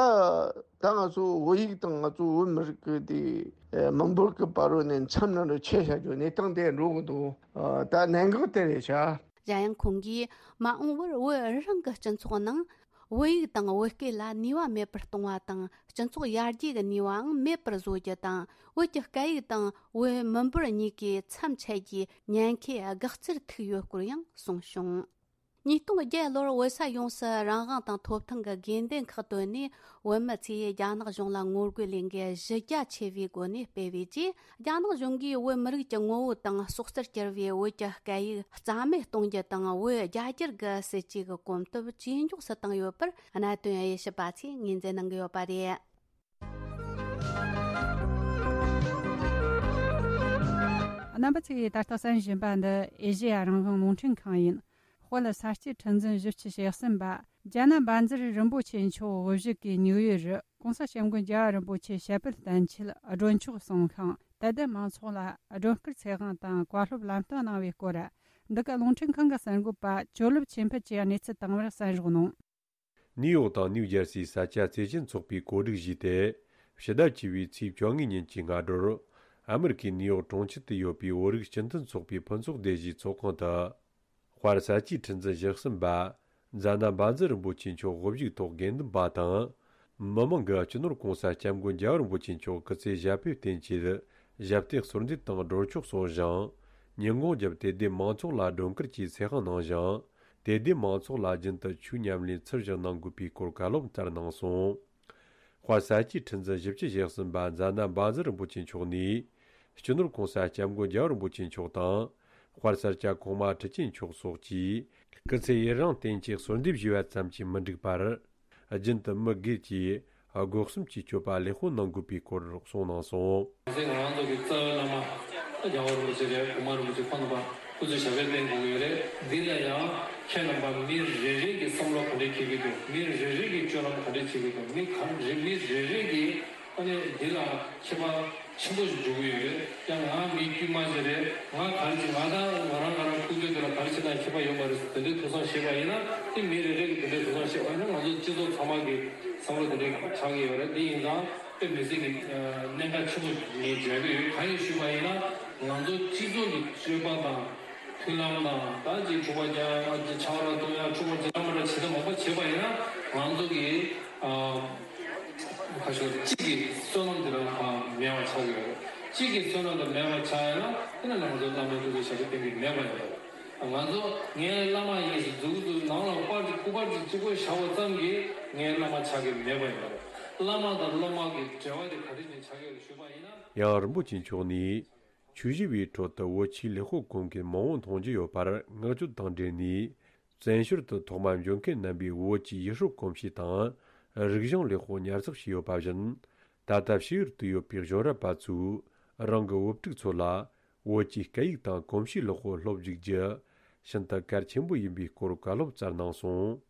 ད་ང་ཚོ་བོད་ཡིག་དང་ང་ཚོ་བོད་མི་རིགས་ཀྱི་དེ་མི་འབོར་གྱི་བར་རོ་ནས་མཚམས་ནང་དུ་ཆད་བཞག་རྒྱུ་གནས་སྟངས་དེ་འགྲོ་གི་འདུག་ད་གནད་འགག་དེ་རེད་ཤག་གཞན་ཡང་ཁོང་གིས་མ་འོངས་པར་བོད་རང་གི་སྤྱི་ཚོགས་ནང་བོད་ཡིག་དང་བོད་སྐད་ལ་ནུས་པ་མེད་པར་གཏོང་བ་དང་། སྤྱི་ཚོགས་ཡར་རྒྱས་ཀྱི་ནུས་པའང་མེད་པར་བཟོ་རྒྱུ་དང་། བོད་ཀྱི་སྐད་ཡིག་དང་བོད་མི་འབོར་གཉིས་ཀའི་མཚམས་ཆད་རྒྱུའི་ཉེན་ཁའི་དགག་རྩར་ཐུག་ཡོད་སྐོར་ཡང་གསུངས་བྱུང་། ཉིས་སྟོང་བརྒྱད་ལོར་བོད་ས་ཡོངས་སུ་རང་དབང་དང་ཐོབ་ཐང་གི་དགོས་འདུན་ཁག་བཏོན་ནས། བོད་མི་ཚོས་རྒྱ་ནག་གཞུང་ལ་ངོ་རྒོལ་ལས་འགུལ་གཞི་རྒྱ་ཆེ་བའི་སྒོ་ནས་སྤེལ་བའི་རྗེས། རྒྱ་ནག་གཞུང་གིས་བོད་མི་རིགས་ཀྱི་ངོ་བོ་དང་སྲོག་རྩར་གྱུར་བའི་བོད་ཀྱི་སྐད་ཡིག་རྩ་མེད་གཏོང་རྒྱུ་དང་། བོད་རྒྱ་སྒྱུར་གྱི་སྲིད་ཇུས་ཀྱི་གོམ་སྟབས་ཇེ་མགྱོགས་སུ་བཏང་ཡོད་པར། གནད་དོན་དབྱེ་ཞིབ་པ་ཚོས་ངོས་འཛིན་གནང་གི་ཡོད་པ་རེད། རྣམ་པ་ཚོས་ད་ལྟ་གསན་བཞིན་པ་འདི་ཨེ་ཤེ་ཡ་རང་དབང་རླུང་འཕྲིན་ཁང་ཡིན། དཔལ་ས་སྐྱའི་ཁྲི་འཛིན་བཞི་བཅུ་ཞེ་གསུམ་པ་རྒྱ་ནག་བཛྲ་རིན་པོ་ཆེ་མཆོག་དབུ་བཞུགས་ཀྱིས་ཉིའུ་ཡོག་རུ་༸གོང་ས་༸སྐྱབས་མགོན་རྒྱལ་བ་རིན་པོ་ཆེ་ཞབས་པད་བརྟན་ཆེད་སྒྲོན་ཆོག་གསུང་ཤིང་། དད་ལྡན་མང་ཚོགས་ལ་སྒྲོན་སྐུར་ཚེ་དབང་དང་བཀའ་སློབ་ལམ་སྟོན་གནང་བའི་སྐོར། འདི་ག་རླུང་འཕྲིན་ཁང་གི་གསར་འགོད་པ་ཇོ་ལེབ་ཆོས་འཕེལ་གྱིས་གནས་ཚུལ་དང་པོར་གསན་རོགས་གནང་། ནིའུ་ཡོག་དང་ནིའུ་ཇར་སིའི་ས་སྐྱ་བཙན་བྱོལ་ཚོགས་པའི་གོ་སྒྲིག་བཞེས་ཏེ། ཕྱི་ཟླ་བཅུ་བའི་ཚེས་བཅོ་ལྔ་ཉིན་གྱི་སྔ་དྲོར། ཨ་མི་རི་ཀའི་ནིའུ་ཡོག་གྲོང་ཁྱེར་དུ་ཡོད་པའི་བོད་རིགས་སྤྱི་མཐུན་ཚོགས་པའི་ཕུན་ཚོགས་སྡེ་བཞིའི་ཚོགས་ཁང་དུ། དཔལ་ས་སྐྱའི་ཁྲི་འཛིན་བཞི་གསུམ་པ་མཛད་ན་བཛྲ་རིན་པོ་ཆེ་མཆོག་དབུ་བཞུགས་ཐོག་དགེ་འདུན་པ་དང་། མི་མང་གིས་སྤྱི་ནོར་༸གོང་ས་༸སྐྱབས་མགོན་རྒྱལ་བ་རིན་པོ་ཆེ་མཆོག་སྐུ་ཚེ་ཞབས་པད་བརྟན་ཆེད་ཞབས་སྟེགས་གསོལ་འདེབས་དང་སྒྲོན་ཆོག་གསུང་ཞིང་། ཉིན་གུང་རྒྱབ་དད་ལྡན་མང་ཚོགས་ལ་སྒྲོན་སྐུར་གྱིས་ཚེ་དབང་གནང་ཞིང་། དད་ལྡན་མང་ཚོགས་ལ་རྒྱུན་དུ་ཆོས་ཉམས་ལེན་ཚུལ་བཞིན་གནང་དགོས་པའི་སྐོར་བཀའ་སློབ་བསྩལ་གནང་སོང་། དཔལ་ས་སྐྱའི་ཁྲི་འཛིན་བཞི་བཅུ་ཞེ་གསུམ་པ་མཛད་ན་བཛྲ་རིན་པོ་ཆེ་མཆོག་ནས། སྤྱི་ནོར་༸གོང་ས་༸སྐྱབས་མགོན་རྒྱལ་བ་རིན་པོ་ཆེ་མཆོག་དང་། དཔལ་ས་སྐྱ་གོང་མ་ཁྲི་ཆེན་མཆོག་སོགས་ཀྱིས་སྐུ་ཚེ་ཡུན་རིང་བརྟན་ཅིང་གསོལ་འདེབས་ཞུས་པ་ཙམ་གྱིས་མི་འགྲིག་པར། རྒྱུན་དུ་མི་སྒེར་གྱིས་སྒོ་གསུམ་གྱི་སྤྱོད་པ་ལེགས་པོ་གནང་དགོས་པའི་སྐོར་གསུངས་གནང་སོང་། ང་ཚོ་ང་རང་ཚོ་གི་རྩ་བའི་བླ་མ་རྒྱལ་བ་རིན་པོ་ཆེ་རེད། གོང་མ་རིན་པོ་ཆེ་ཁོང་རྣམ་པ་སྐུ་ཚེ་ཞབས་པད་བརྟན་དགོས་ཀྱི་ཡོད་རེད། འདི་ལ་ཡང་ཁྱེད་རྣམ་པ་མི་རེ་རེ་གི་བསམ་བློ་ག་འདྲས་འཁྱེར་གྱི་འདུག་མི་རེ་རེ་གི་སྤྱོད་ལམ་ག་འདྲས་འཁྱེར་གྱི་འདུག་མི་ག་རེ་མི་རེ་རེ་གི་ཨ་ནི་འདི་ལ་ཁྱད་པར་ཆེན་པོ་ཞིག་འགྲོ་གི་ཡོད་རེད། ཡང་ང་མི་དཀྱུས་མ་ཞིག་རེད། ང་ག་རེ་བྱེད། ང་དང་ང་རང་ང་རང་ཁུག་ཀྱོག་དེ་ལ་ག་རེ་བྱེད་ན་ཁྱད་པར་ཡོད་མ་རེད་ཟེར་དེ་འདྲའི་ཐུགས་བསམ་བཞེས་པ་ཡིན་ན། དེ་མི་རེ་རེ་གི་དེ་འདྲའི་ཐུགས་བསམ་བཞེས་པ་ཡིན་ན། ང་ཚོ་སྤྱི་ཚོགས་ཚང་མ་གི་བསམ་བློ་དེ་འདྲའི་ཆགས་ཀྱི་ཡོད་རེད། དེ་ཡིན་ཙང་དཔེ་མི་སྲིད་ཀྱི་གནད་འགག་ཆེན་པོ་ངས་མཇལ་གྱི་ཡོད། གང་ཡིན་ཞུས་པ་ཡིན་ན། ང་ཚོ་སྤྱི་ཚོགས་ཀྱི་སྤྱོད་པ་དང་མཐུན་ལམ་དང་། ད་ཅིག་འཁྲུག་པ་རྒྱག་ཡ། ཅིག་ཆང་རག་འཐུང་ཡ། འཁྲུག་པ་རྒྱག་མ་འདྲ་བྱེད་ཐབས་མང་པོ་བྱེད་པ་ཡིན་ན། ང་ཚོ་གི་ཨ་ཁ་ཤོར་གཅིག་གི་བསོད་ནམས་དེ་རང་གང་མེད་པ་ཆགས་ཀྱི་ཡོད་རེད། གཅིག་གི་བསོད་ནམས་དེ་མེད་པ་ཆགས་ཡ་ན། དེ་ནས་ང་ཚོ་བླ་མའི་སྐུ་ཚེ་ཞབས་པད་བརྟན་གྱི་མེད་པ་ཡིན་པ་རེད། ང་ཚོ་ངའི་བླ་མ་ཡིན་ཟེར་མཛུབ་གུ་ནང་ལ་པར་གཅིག་སྐུ་པར་གཅིག་གཅིག་པོ་བཞག་པ་ཙམ་གྱིས་ངའི་བླ་མ་ཆགས་ཀྱི་མེད་པ་ཡིན་པ་རེད། བླ་མ་དང་སློབ་མ་གི་འབྲེལ་བ་དེ་ག་དུས་ནས་ཆགས་ཀྱི་ཡོད་རེད་ཞུས་པ་ཡིན་ན། ཡང་རིན་པོ་ཆེ་མཆོག་ནས། ཆོས་ཞུ་བའི་ཁྲོད་དུ་བོད་ཆོས་ལེགས་པོ་གོ་མཁན་མང་བོ་མཐོང་རྒྱུ་ཡོད་པར་བསྔགས་བརྗོད་དང་འབྲེལ་ནས། བཙན་བྱོལ་དུ་ཐོག་མ་འབྱོར་མཁན་རྣམ་པས་བོད་ཀྱི་ཡུལ་སྲོལ་གོམས་གཤིས་དང་། རིག་གཞུང་ལེགས་པོ་ཉར་ཚགས་བྱས་ཡོད་པ་བཞིན། ད་ལྟ་ཕྱི་ཡུལ་དུ་ཡོད་པའི་གཞོན་རབས་པ་ཚོས་རང་གི་བུ་ཕྲུག་ཚོ་ལ་བོད་ཀྱི་སྐད་ཡིག་དང་གོམས་གཤིས་ལེགས་པོ་སློབ་འཇུག་རྒྱུ་ཤིན་ཏུ་གལ་ཆེན་པོ་ཡིན་པའི་སྐོར་བཀའ་སློབ་སྩལ་གནང་སོང་།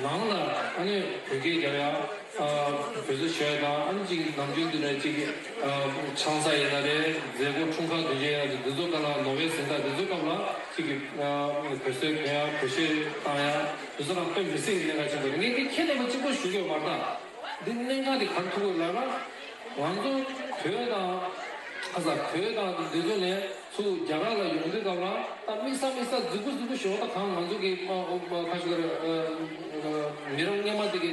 ནང་ལ་ཨ་ནི་བོད་སྐད་རྒྱབ་ཡ། ཨ་བོད་ཟོ་ཞོ་ཡ་དང་། ཨ་ནི་ཅིག་ནམ་རྒྱུན་དུ་ནས་ཅིག་ཨ་ཆང་ས་ཡིན་ན་རེད། མཛད་སྒོ་འཁྲུངས་སྐར་དུས་ཆེན་ཡིན་ན་རེད། འདི་ཚོ་ག་ལ་ལོ་བའི་གཟེངས་རྟགས་འདི་ཚོ་སྐབས་ལ་ཅིག་གི་ཨ་བོད་ཟོ་གོན་ཡ། བོད་གཞས་བཏང་ཡ། འདི་ཚོ་རང་དཔེ་མི་སྲིད་ཀྱི་གནད་འགག་ཆེན་པོ་རེད། ངས་འདི་ཁྱེད་རྣམ་པ་གཅིག་པོ་ཞུ་གི་ཡོད་མ་རེད་ད། འདི་གནད་འགག་འདི་ག་རེ་ཐུག་གི་ལབ་ན། ང་ཚོ་བོད་དང་ཁ་ས་བོད་དང་འདི་ཚོ་ནས་ཚུར་རྒྱ་གར་ལ་ཡོང་དུས་སྐབས་ལ། ད་དམིགས་བསལ་དམིགས་བསལ་རྫིག་པོ་རྫིག་པོ་ཞིག་ད་གང་ང་ཚོ་གི་ཨ་ཨ་ཁ་ཤོར་ཨ་ཨ་མི་རབས་སྔོན་མ་དེ་གི་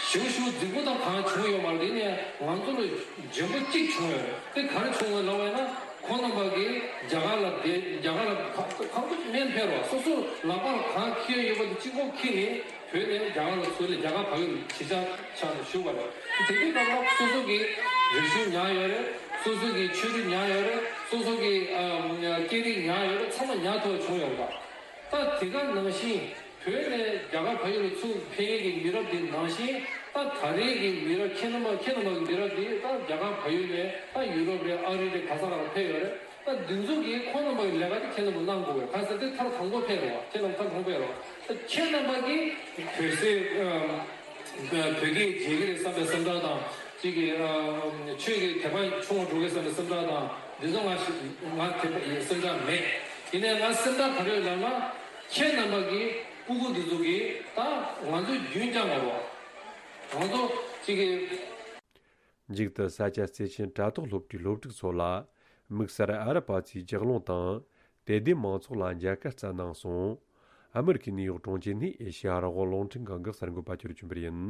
ཞེ་པོ་ཞེ་པོ་རྫིག་པོ་དང་གང་བྱུང་ཡོད་མ་རེད། དེ་ནས་ང་ཚོ་ལ་འཇོན་པོ་གཅིག་བྱུང་ཡོད་རེད། དེ་ག་རེ་བྱུང་ཡོད་ལབ་པ་ཡིན་ན། ཁོང་རྣམ་པ་གིས་རྒྱ་གར་ལ་བསྡད། རྒྱ་གར་ལ་ག་ག་ག་སྨན་ཕེབས་རོགས། སོ་སོ་ལག་པར་གང་འཁྱེར་ཡོད་པ་དེ་གཅིག་པོ་འཁྱེར་ནས་བོད་ནས་རྒྱ་གར་ལ་ཚུར་ལ་རྒྱ་གར་བལ་ཡུལ་གྱི་ཆ་ཆ་ནས་ཞུ་བ་རེད། དེ་དུས་སྐབས་ལ་སོ་སོ་གི་རིག་གཞུང་ཉར་ཡོད་རེད། སོ་སོ་གི་ཆོས་རིག་ཉར་ཡོད་རེད། སོ་སོ་གི་ཨ་སྐད་རིགས་ཉར་ཡོད་རེད། ཚང་མ་ཉར་ཐུབ་པ་བྱུང་ཡོད་རེད་པ། ད་དེ་ག་ནང་བཞིན་བོད་ནས་རྒྱ་གར་བལ་ཡུལ་ལ་ཚུར་ཕེབས་མཁན་གྱི་མི་རབས་འདི་ནང་བཞིན། ད་ད་རེས་ཀྱི་མི་རབས་ཁྱེད་རྣམ་པ་ཁྱེད་རྣམ་པ་གི་མི་རབས་འདི་ད་རྒྱ་གར་བལ་ཡུལ་ནས་ད་ཡུ་རོབ་རེད། ཨ་རི་རེད། ག་ས་ག་ལ་ཕེབས་ཡོད་རེད། ད་འདི་ཚོ་གིས་ཁོང་རྣམ་པ་གི་ལས་ཀ་དེ་ཁྱེད་རྣམ་པ་གནང་དགོས་རེད། ག་ས་དེ་མཐར་དང་པོ་ཕེབས་རེད་བ། ཁྱེད་རྣམ་པ་མཐར་དང་པོ་ཕེབས་རེད་བ། ད་ཁྱེད་རྣམ་པ་གིས་བོད་ཟེར་ཨ་བོད་སྐད་བརྗེད་ཀྱི་རེད་བསམ་པའི་སེམས་ཁྲལ་དང་། གཅིག་གིས་ཨ་ཆོས་ཀྱི་དད་པ་ཆུང་བ་འགྲོ་གི་བསམ་པའི་སེམས་ཁྲལ་དང་། འདི་ཚོ་ང་ཞིག་ང་དེ་འདྲ་ཡི་སེམས་ཁྲལ་མེད། ཡིན་ནའི་ང་སེམས་ཁྲལ་ག་རེ་ཡོད་ལབ་ན། ཁྱེད་རྣམ་པ་གི་སྤུ་གུ་འདི་ཚོ་གིས་ད་ང་ཚོ་རྒྱུན་བསྐྱངས་དགོས་རེད་བ། ང་ཚོ་གཅིག་གིས། མཇུག་ཏུ་ས་སྐྱ་བརྩེ་ཆེན་དྲ་ཐོག་སློབ་གྲྭའི་སློབ་ཕྲུག་ཚོ་ལ་དམིགས་བསལ་ཨ་རི་པ་ཚོའི་ལྗགས་ལུང་དང་དད་ལྡན་མང་ཚོགས་ལ་མཇལ་ཁ་བསྩལ་གནང་སོང་། ཨ་མི་རི་ཀའི་ནིའུ་ཡོག་གྲོང་ཁྱེར་ནས་ཨེ་ཤེ་ཡ་རང་དབང་རླུང་འཕྲིན་ཁང་གི་གསར་འགོད་པ་ཆོས་སྒྲོན་པར་ཡིན།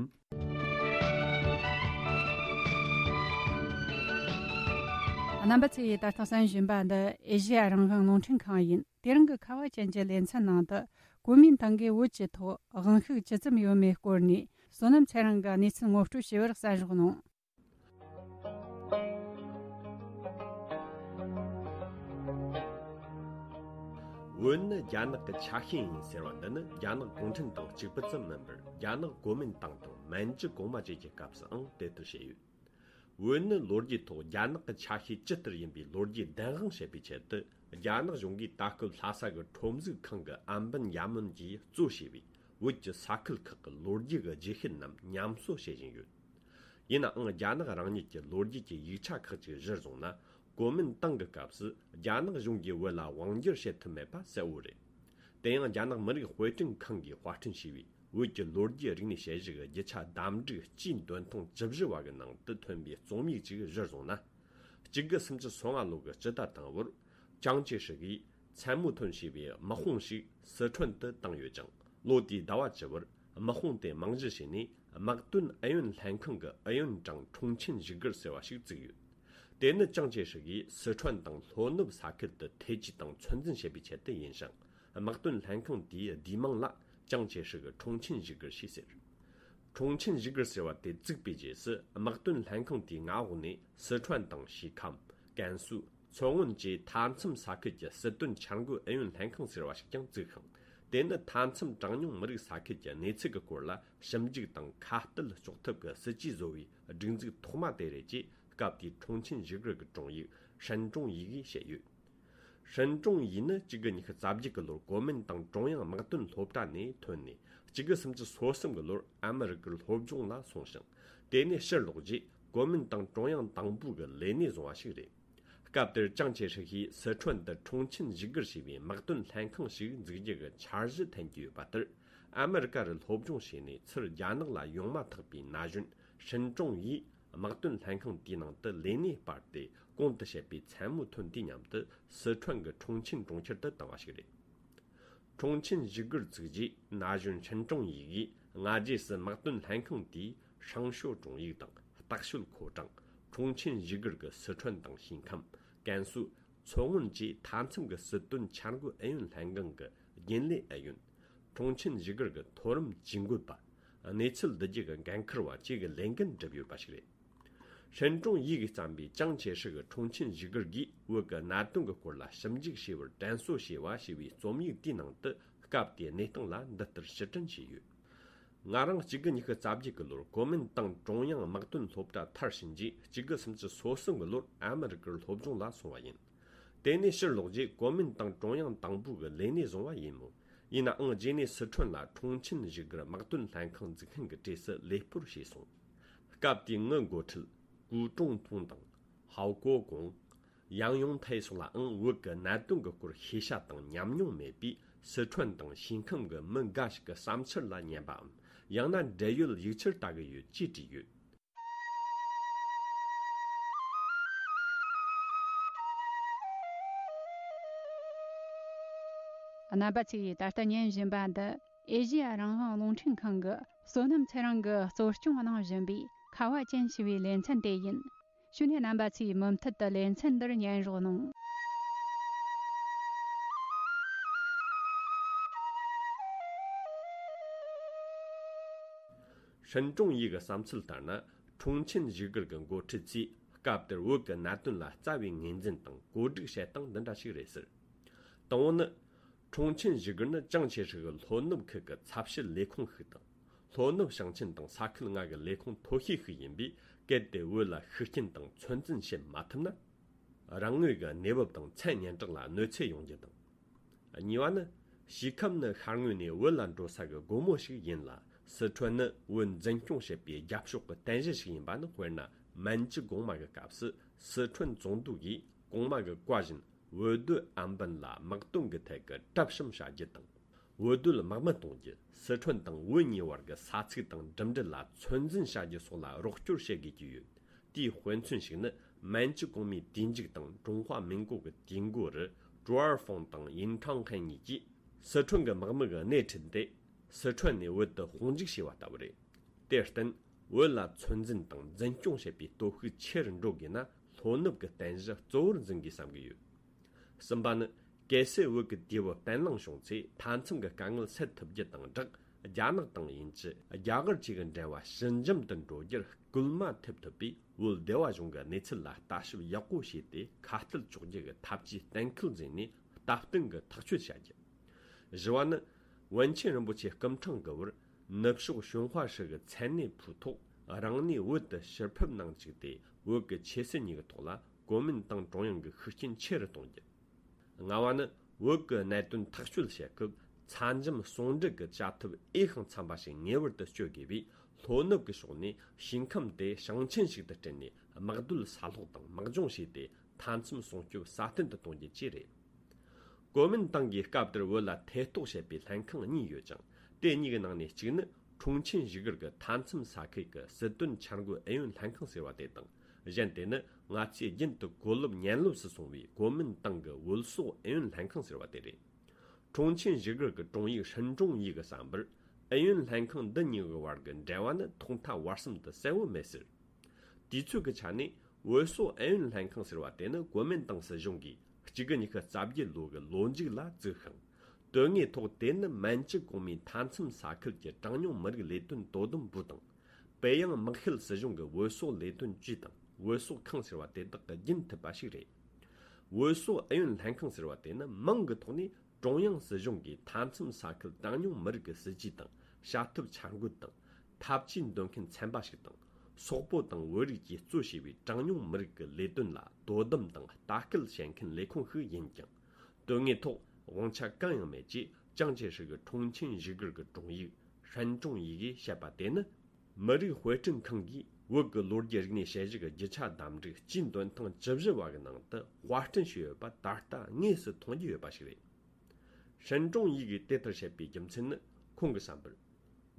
རྣམ་པ་ཚོས་ད་ལྟ་གསན་བཞིན་པ་འདི་ཨེ་ཤེ་ཡ་རང་དབང་རླུང་འཕྲིན་ཁང་ཡིན། དེ་རིང་གི་ཁ་བ་ཅན་གྱི་ལེ་ཚན་ནང་དུ། གོ་མིན་ཏང་གིས་བོད་ཀྱི་ཐོག་དབང་ཤུགས་ཇི་ཙམ་ཡོད་མེད་སྐོར་ནས། བསོད་ནམས་ཚེ་རིང་གིས་གནས་ཚུལ་ངོ་སྤྲོད་བྱས་པར་གསན་རོགས་གནང་། བོད་ནི་རྒྱ་ནག་གི་ཆ་ཤས་ཡིན་ཟེར་བ་འདི་ནི་རྒྱ་ནག་གུང་ཁྲན་ཏང་གཅིག་པུ་ཙམ་མིན་པར། རྒྱ་ནག་གོ་མིན་ཏང་དང་མན་ཇུ་གོང་མ་བཅས་ཀྱི་སྐབས་སུའང་དེ་ལྟར་བཤད་ཡོད། བོད་ནི་ལོ་རྒྱུས་ཐོག་རྒྱ་ནག་གི་ཆ་ཤས་ཇི་ལྟར་ཡིན་པའི་ལོ་རྒྱུས་བདེན་དཔང་བྱེད་པའི་ཆེད་དུ། རྒྱ་ནག་གཞུང་གིས་ད་སྐབས་ལྷ་ས་གི་ཁྲོམ་གཟུགས་ཁང་གི་ཨམ་བན་ཡ་མོན་གྱིས་གཙོ་བྱས་པའི་བོད་ཀྱི་ས་ཁུལ་ཁག་གི་ལོ་རྒྱུས་ཀྱི་རྗེས་ཤུལ་རྣམས་ཉམས་གསོ་བྱེད་བཞིན་ཡོད། ཡིན་ནའང་རྒྱ་ནག་རང་ཉིད་ཀྱི་ལོ་རྒྱུས་ཀྱི་ཡིག་ཆ་ཁག་ཅིག་གཞིར་བཟུང་ན། གོ་མིན་ཏང་གི་སྐབས་སུ་རྒྱ་ནག་གཞུང་གིས་བོད་ལ་དབང་སྒྱུར་བྱེད་ཐུབ་མེད་པ་གསལ་བོ་རེད། དེ་ཡང་རྒྱ་ནག་མི་རིགས་དཔེ་སྐྲུན་ཁང་གིས་དཔར་སྐྲུན་བྱས་པའི་བོད་ཀྱི་ལོ་རྒྱུས་རིག་གནས་དཔྱད་གཞི་གི་རྒྱུ་ཆ་བདམས་སྒྲིག་སྤྱིའི་འདོན་ཐེངས་བཅུ་བཞི་བ་གི་ནང་དུ་ཐོན་པའི་རྩོམ་ཡིག་ཅིག་གཞིར་བཟུང་ན། གཅིག་དགུ་སུམ་ཅུ་སོ་ལྔ་ལོ་གི་སྤྱི་ཟླ་དང་པོར། ཅང་ཅེ་ཧྲི་གིས་མཚན་མོ་ཐོན་ཞེས་པའི་དམག་དཔུང་ཞིག་སི་ཁྲོན་དུ་བཏང་ཡོད་ཅིང་། ལོ་དེའི་ཟླ་བ་བཅུ་བར་དམག་དཔུང་དེ་རྨང་གཞི་བྱས་ནས། དམག་དོན་ཨུ་ཡོན་ལྷན་ཁང་གི་ཨུ་ཡོན་ཀྲང་ཁྲུང་ཆིན་བཞུགས་སྒར་ཟེར་བ་ཞིག་བཙུགས་ཡོད། དེ་ནི་ཅང་ཅེ་ཧྲི་གིས་སི་ཁྲོན་དང་ལྷོ་ནུབ་ས་ཁུལ་དུ་ཐེ་ཇུས་དང་ཚོད་འཛིན་བྱེད་པའི་ཆེད་དུ་ཡིན་ཞིང་། དམག་དོན་ལྷན་ཁང་དེའི་བསྡུས་མིང་ལ་ཅང་ཅེ་ཧྲི་གི་ཁྲུང་ཆིན་བཞུགས་སྒར་ཞེས་ཟེར། ཁྲུང་ཆིན་བཞུགས་སྒར་ཟེར་བ་དེ་བཙུགས་པའི་རྗེས་སུ། དམག་དོན་ལྷན་ཁང་དེའི་མངའ་འོག་ནས་སི་ཁྲོན་དང་ཞི་ཁམས། ཀན་སུའུ། མཚོ་སྔོན་བཅས་མཐའ་མཚམས་ས་ཁུལ་གྱི་སྲིད་དོན་འཆར་འགོད་ཨུ་ཡོན་ལྷན་ཁང་ཟེར་བ་ཞིག་ཀྱང་བཙུགས་ཤིང་། དེ་ནི་མཐའ་མཚམས་གྲངས་ཉུང་མི་རིགས་ས་ཁུལ་གྱི་གནས་ཚུལ་གྱི་སྐོར་ལ་ཞིབ་འཇུག་དང་ཁ་གཏད་གཅོག་ཐབས་ཀྱི་སྲིད་ཇུས་བཟོ་བའི་སྒྲིག་འཛུགས་ཐོག་མ་དེ་རེད་ཅེས། སྐབས་དེའི་ཁྲུང་ཆིན་བཞུགས་སྒར་གྱི་དྲུང་ཡིག་ཧྲན་ཀྲུང་ཡི་གིས་བཤད་ཡོད། ཧྲན་ཀྲུང་ཡི་ནི་གཅིག་དགུ་ཉི་ཤུ་རྩ་བརྒྱད་ཀྱི་ལོར་གོ་མིན་ཏང་ཀྲུང་དབྱང་དམག་དོན་སློབ་གྲྭ་ནས་ཐོན་ནས། གཅིག་དགུ་སུམ་ཅུ་སོ་གསུམ་གྱི་ལོར་ཨ་མི་རི་ཀར་སློབ་སྦྱོང་ལ་སོང་ཞིང་། དེ་ནས་ཕྱིར་ལོག་རྗེས་གོ་མིན་ཏང་ཀྲུང་དབྱང་དང་པོའི་ལས་གནས་བཟུང་བ་ཞིག་རེད། སྐབས་དེར་ཅང་ཅེ་ཧྲི་ཡིས་སི་ཁྲོན་དུ་ཁྲུང་ཆིན་བཞུགས་སྒར་ཞེས་པའི་དམག་དོན་ལྷན་ཁང་ཞིག་འཛུགས་རྒྱུ་གི་འཆར་གཞི་འཐེན་གྱི་ཡོད་པ་ལྟར། ཨ་མི་རི་ཀ་རུ་སློབ་སྦྱོང་བྱས་ནས་ཚུར་རྒྱ་ནག་ལ་ཡོང་མ་ཐག་པའི་ན་གཞོན་ཧྲིན་ཀྲུང་ཡིས་དམག་དོན་ལྷན་ཁང་དེའི་ནང་དུ་ལས་གནས་སྤར་ཏེ། གོང་དུ་བཤད་པའི་མཚན་མོ་ཐོན་དུས་མཉམ་དུ་སི་ཁྲོན་གྱི་ཁྲུང་ཆིན་གྲོང་ཁྱེར་དུ་བཏང་བ་ཞིག་རེད། ཁྲུང་ཆིན་བཞུགས་སྒར་བཙུགས་རྗེས་ན་གཞོན་ཧྲིན་ཀྲུང་ཡི་གིས་སྔ་རྗེས་སུ་དམག་དོན་ལྷན་ཁང་དེའི་ཧྲང་ཤོ་ཀྲུང་ཡིག་དང་ལྟག་ཤོད་ཁོ་ཀྲང་། ཁྲུང་ཆིན་བཞུགས་སྒར་གྱི་སི་ཁྲོན་དང་ཞིང་ཁམས། ཀན་སུའུ། མཚོ་སྔོན་བཅས་མཐའ་མཚམས་ཀྱི་སྲིད་དོན་འཆར་འགོད་ཨུ་ཡོན་ལྷན་ཁང་གི་རྒྱུན་ལས་ཨུ་ཡོན། ཁྲུང་ཆིན་བཞུགས་སྒར་གྱི་མཐོ་རིམ་ཇུས་འགོད་པ། གནས་ཚུལ་བསྡུ་རྒྱུ་གི་འགན་འཁུར་བ་བཅས་ཀྱི་ལས་འགན་བསྒྲུབས་ཡོད་པ་ཞིག་རེད། ཧྲིན་ཀྲུང་ཡི་གིས་བརྩམས་པའི་ཅང་ཆེ་ཧྲི་གི་ཁྲུང་ཆིན་བཞུགས་སྒར་གྱིས་བོད་ཀྱི་གནད་དོན་གྱི་སྐོར་ལ་ཞིབ་འཇུག་བྱས་པར་དྲན་གསོ་བྱས་པ་ཞེས་པའི་རྩོམ་ཡིག་དེའི་ནང་དུ། སྐབས་དེའི་གནས་སྟངས་ལ་འདི་ལྟར་ཕྱིར་དྲན་བྱས་ཡོད། ང་རང་གཅིག་དགུ་ཉི་ཤུ་རྩ་བརྒྱད་ཀྱི་ལོར་གོ་མིན་ཏང་ཀྲུང་དབྱང་དམག་དོན་སློབ་གྲྭ་མཐར་ཕྱིན་རྗེས། གཅིག་དགུ་སུམ་ཅུ་སོ་གསུམ་གྱི་ལོར་ཨ་མི་རི་ཀར་སློབ་སྦྱོང་ལ་སོང་བ་ཡིན། དེ་ནས་ཕྱིར་ལོག་རྗེས་གོ་མིན་ཏང་ཀྲུང་དབྱང་དང་པོ་གི་ལས་གནས་བཟུང་བ་ཡིན་མོད། ཡིན་ནའང་རྗེས་ནས་སི་ཁྲོན་ལ་ཁྲུང་ཆིན་བཞུགས་སྒར་དམག་དོན་ལྷན་ཁང་འཛུགས་མཁན་གྱི་གྲས་སུ་ལས་སྤོར་བྱས་སོང་། སྐབས་དེའི་ངའི་འགོ་ཁྲིད་ཀུའུ་ཀྲུང་ཏུང་དང་ཧའོ་ཀོ་ཀོང་། ཡང་ཡུང་ཐའེ་སོགས་ལའང་བོད་ཀྱི་གནད་དོན་གྱི་སྐོར་ཤེས་བྱ་དང་ཉམས་མྱོང་མེད་པས། སི་ཁྲོན་དང་ཞིང་ཁམས་ཀྱི་མི་འགའ་ཞིག་གི་བསམ་འཆར་ལ་ཉན་པའམ། ཡང་ན་འབྲེལ་ཡོད་ཡིག་ཆར་ལྟ་གི་ཡོད་ཅེས་བྲིས་ཡོད། རྣམ་པ་ཚོས་ད་ལྟ་ཉན་བཞིན་པ་འདི་ཨེ་ཤེ་ཡ་རང་དབང་རླུང་འཕྲིན་ཁང་གི་བསོད་ནམས་ཚེ་རིང་གིས་གཙོ་སྐྱོང་གནང་བཞིན་པའི་ཁ་བ་ཅན་ཞེས་པའི་ལེ་ཚན་དེ་ཡིན། ཞུ་ནས་རྣམ་པ་ཚོས་མུ་མཐུད་དུ་ལེ་ཚན་འདིར་ཉན་རོགས་གནང་། ཧྲིན་ཀྲུང་ཡི་གི་བསམ་ཚུལ་ལྟར་ན། ཁྲུང་ཆིན་བཞུགས་སྒར་གྱི་འགོ་ཁྲིད་ཚོས་སྐབས་དེར་བོད་ཀྱི་གནད་དོན་ལ་རྩ་བའི་ངོས་འཛིན་དང་བཀོད་སྒྲིག་བྱེད་སྟངས་འདི་འདྲ་ཞིག་རེད་ཟེར། དང་པོ་ནི། ཁྲུང་ཆིན་བཞུགས་སྒར་ནི་ཅང་ཆེ་ཧྲི་གི་ལྷོ་ནུབ་ཁུལ་གྱི་ཚབ་སྤྱི་ལས་ཁུངས་ཤིག་དང་། ལྷོ་ནུབ་ཞིང་ཆེན་དང་ས་ཁུལ་ལྔ་གི་ལས་ཁུངས་མཐོ་ཤོས་ཤིག་ཡིན་པས། གལ་ཏེ་བོད་ལ་ཤུགས་རྐྱེན་དང་ཚོད་འཛིན་བྱེད་མ་ཐུབ་ན། རང་ངོས་ཀྱི་གནས་བབ་དང་མཚན་སྙན་གྲགས་ལ་གནོད་འཚེ་ཡོང་རྒྱུ་དང་། གཉིས་པ་ནི། སྐྱེ་ཁམས་ནི་ཤར་ངོས་ནས་བོད་ལ་འགྲོ་ས་གི་སྒོ་མོ་ཞིག་ཡིན་ལ། སི་ཁྲོན་ནི་བོད་འཛིན་སྐྱོང་བྱེད་པའི་རྒྱབ་ཕྱོགས་ཀྱི་རྟེན་གཞི་ཞིག་ཡིན་པ་ནི། དཔེར་ན། མན་ཇུ་གོང་མ་གི་སྐབས་སུ་སི་ཁྲོན་བཙོང་འདུ་གིས་གོང་མ་གི་བཀའ་བཞིན་བོད་སྡོད་ཨམ་བན་ལ་དམག་དོན་གྱི་ཐད་ཀྱི་གྲབས་བྱུང་བྱ་རྒྱུ་དང་། བོད་སྡོད་དམག་མི་གཏོང་རྒྱུ། སི་ཁྲོན་དང་བོད་གཉིས་བར་གྱི་ས་ཚིགས་དང་འགྲིམ་འགྲུལ་ལ་ཚོད་འཛིན་བྱ་རྒྱུ་སོགས་ལ་རོགས་སྐྱོར་བྱེད་དགོས་ཀྱི་ཡོད། དེའི་དཔེ་མཚོན་ཞིག་ནི། མན་ཇུ་གོང་མའི་དུས་མཇུག་དང་ཀྲུང་ཧྭ་མིན་གོ་གི་དུས་འགོ་རུ། ཀྲུའུ་ཨར་ཧྥང་དང་ཡིན་ཁྲང་ཧན་གཉིས་ཀྱིས་སི་ཁྲོན་གྱི་དམག་མི་གི་སྣེ་ཁྲིད་དེ། སི་ཁྲོན་ནས་བོད་དུ་དཔུང་འཇུག་བྱས་པ་ལྟ་བུ་རེད། དེར་བརྟེན། བོད་ལ་ཚོད་འཛིན་དང་འཛིན་སྐྱོང་བྱེད་པའི་སྟོབས་ཤུགས་ཆེ་རུ་འགྲོ་དགོས་ན། ལྷོ་ནུབ་ཀྱི་རྟེན་གཞི་གཙོ་བོར་འཛིན་དགོས་བསམ་གྱི་ཡོད། གསུམ་པ་ནི། གལ་སྲིད་བོད་ཀྱི་དུས་བབ་བརྟན་ལྷིང་བྱུང་ཚེ། མཐའ་མཚམས་ཀྱི་དཀའ་ངལ་སེལ་ཐུབ་རྒྱུ་དང་སྦྲགས། རྒྱ་ནག་དང་དབྱིན་ཇི། རྒྱ་གར་བཅས་ཀྱི་འབྲེལ་བ་ཞི་འཇམ་དུ་འགྲོ་རྒྱུར་སྐུལ་མ་ཐེབས་ཐུབ་པས། བོད་སྡེ་བ་གཞུང་གི་གནས་ཚུལ་ལ་ལྟ་ཞིབ་ཡག་པོ་བྱས་ཏེ། ཁ་གཏད་གཅོག་རྒྱུ་གི་ཐབས་ཇུས་གཏན་འཁེལ་མཛད་ནས། སྟབས་བསྟུན་གྱི་ཐག་གཅོད་བྱ་རྒྱུ། བཞི་བ་ནི། ཝུན་ཆེན་རིན་པོ་ཆེ་སྐུ་ཕྲེང་གི་བར། ནུབ་ཕྱོགས་ཞུན་ཧྭ་ཧྲི་གི་མཚན་གནས་ཕུའུ་ཐོག་རང་གནས་བོད་དུ་ཕྱིར་ཕེབས་གནང་བཅུག་སྟེ། བོད་ཀྱི་ཆོས་སྲིད་གཉིས་ཀྱི་ཐོག་ལ་གོ་མིན་ཏང་ཀྲུང་དབྱང་གི་ཤུགས་རྐྱེན་ཆེ་རུ་གཏོང་རྒྱུ། ལྔ་བ་ནི། བོད་ཀྱི་གནད་དོན་ཐག་གཅོད་བྱེད་སྐབས། ཚ་འཇམ་ཟུང་འབྲེལ་གྱི་བྱ་ཐབས་འོས་ཤིང་འཚམ་པ་ཞིག་ངེས་པར་དུ་སྤྱོད་དགོས་པས། ལྷོ་ནུབ་ཀྱི་ཕྱོགས་ནས་ཞིང་ཁམས་དེ་ཞིང་ཆེན་ཞིག་ཏུ་བསྐྲུན་ནས། དམག་སྡོད་ས་སློག་དང་དམག་སྦྱོང་བྱས་ཏེ། མཐའ་མཚམས་སྲུང་སྐྱོབ་སྲ་བརྟན་དུ་གཏོང་རྒྱུ་བཅས་རེད། གོ་མིན་ཏང་གིས་སྐབས་དེར་བོད་ལ་ཐེ་གཏོགས་བྱེད་པའི་ལྷན་ཁང་གཉིས་ཡོད་ཅིང་། དེ་གཉིས་ཀྱི་ནང་ནས་གཅིག་ནི། ཁྲུང་ཆིན་བཞུགས་སྒར་གྱི་མཐའ་མཚམས་ས་ཁུལ་གྱི་སྲིད་དོན་འཆར་འགོད་ཨུ་ཡོན་ལྷན་ཁང་ཟེར་བ་དེ་དང་། གཞན་དེ་ནི། ང་ཚོས་རྒྱུན་དུ་གོ་ལོབ་ཉན་ལོབ་སུ་སོང་བའི་གོ་མིན་ཏང་གི་བོད་སོག་ཨུ་ཡོན་ལྷན་ཁང་ཟེར་བ་དེ་རེད། ཁྲུང་ཆིན་བཞུགས་སྒར་གྱི་དྲུང་ཡིག་ཧྲིན་ཀྲུང་ཡི་གི་བསམ་པར། ཨུ་ཡོན་ལྷན་ཁང་འདི་གཉིས་ཀྱི་བར་གྱི་འབྲེལ་བ་ནི་ཐོག་མཐའ་བར་གསུམ་དུ་གསལ་བོ་མེད་ཟེར། དུས་ཚོད་ཀྱི་ཆ་ནས། བོད་སོག་ཨུ་ཡོན་ལྷན་ཁང་ཟེར་བ་དེ་ནི་གོ་མིན་ཏང་སྲིད་གཞུང་གིས་གཅིག་དགུ་ཉི་ཤུ་རྩ་བརྒྱད་ལོ་གི་ལོ་མཇུག་ལ་བཙུགས་ཤིང་། དོན་དངོས་ཐོག་དེ་ནི་མན་ཇུ་གོང་མའི་མཐའ་མཚམས་ས་ཁུལ་གྱི་གྲངས་ཉུང་མི་རིགས་ལས་དོན་དོ་དམ་པུའུ་དང་། པེ་ཡང་དམག་ཤེད་སྲིད་གཞུང་གི་བོད་སོག་ལས་དོན་ཅུས་དང་བོད་སོག་ཁང་ཟེར་བ་དེ་དག་གིས་རྒྱུན་མཐུད་པ་ཞིག་རེད། བོད་སོག་ཨུ་ཡོན་ལྷན་ཁང་ཟེར་བ་དེ་ནི་མིང་གི་ཐོག་ནས། ཀྲུང་དབྱང་སྲིད་གཞུང་གིས་མཐའ་མཚམས་ས་ཁུལ་གྲངས་ཉུང་མི་རིགས་ཀྱི་སྲིད་ཇུས་དང་བྱ་ཐབས་འཆར་འགོད་དང་། འཐབ་ཇུས་འདོན་མཁན་ཚན་པ་ཞིག་དང་། སོག་པོ་དང་བོད་རིགས་ཀྱིས་གཙོ་བྱས་པའི་གྲངས་ཉུང་མི་རིགས་ཀྱི་ལས་དོན་ལ་དོ་དམ་དང་ལྟ་སྐུལ་བྱེད་མཁན་ལས་ཁུངས་ཤིག་ཡིན་ཀྱང་། དོན་དངོས་ཐོག་དབང་ཆ་གང་ཡང་མེད་ཅེས་ཅང་ཅེ་ཧྲི་གི་ཁྲུང་ཆིན་བཞུགས་སྒར་གྱི་དྲུང་ཡིག་ཧྲན་ཀྲུང་ཡི་གིས་བཤད་པ་དེ་ནི། མི་རིགས་དཔེ་སྐྲུན་ཁང་གིས་བོད་ཀྱི་ལོ་རྒྱུས་རིག་གནས་དཔྱད་གཞི་གི་རྒྱུ་ཆ་བདམས་རིགས་སྤྱིའི་འདོན་ཐེངས་བཅུ་བཞི་བ་གི་ནང་དུ་དཔར་སྐྲུན་བྱས་ཡོད་པ་ད་ལྟ་དངོས་སུ་མཐོང་རྒྱུ་ཡོད་པ་ཞིག་རེད། ཧྲན་ཀྲུང་ཡི་གིས་དེ་ལྟར་བཤད་པའི་རྒྱུ་མཚན་ནི། ཁོང་གི་བསམ་པར།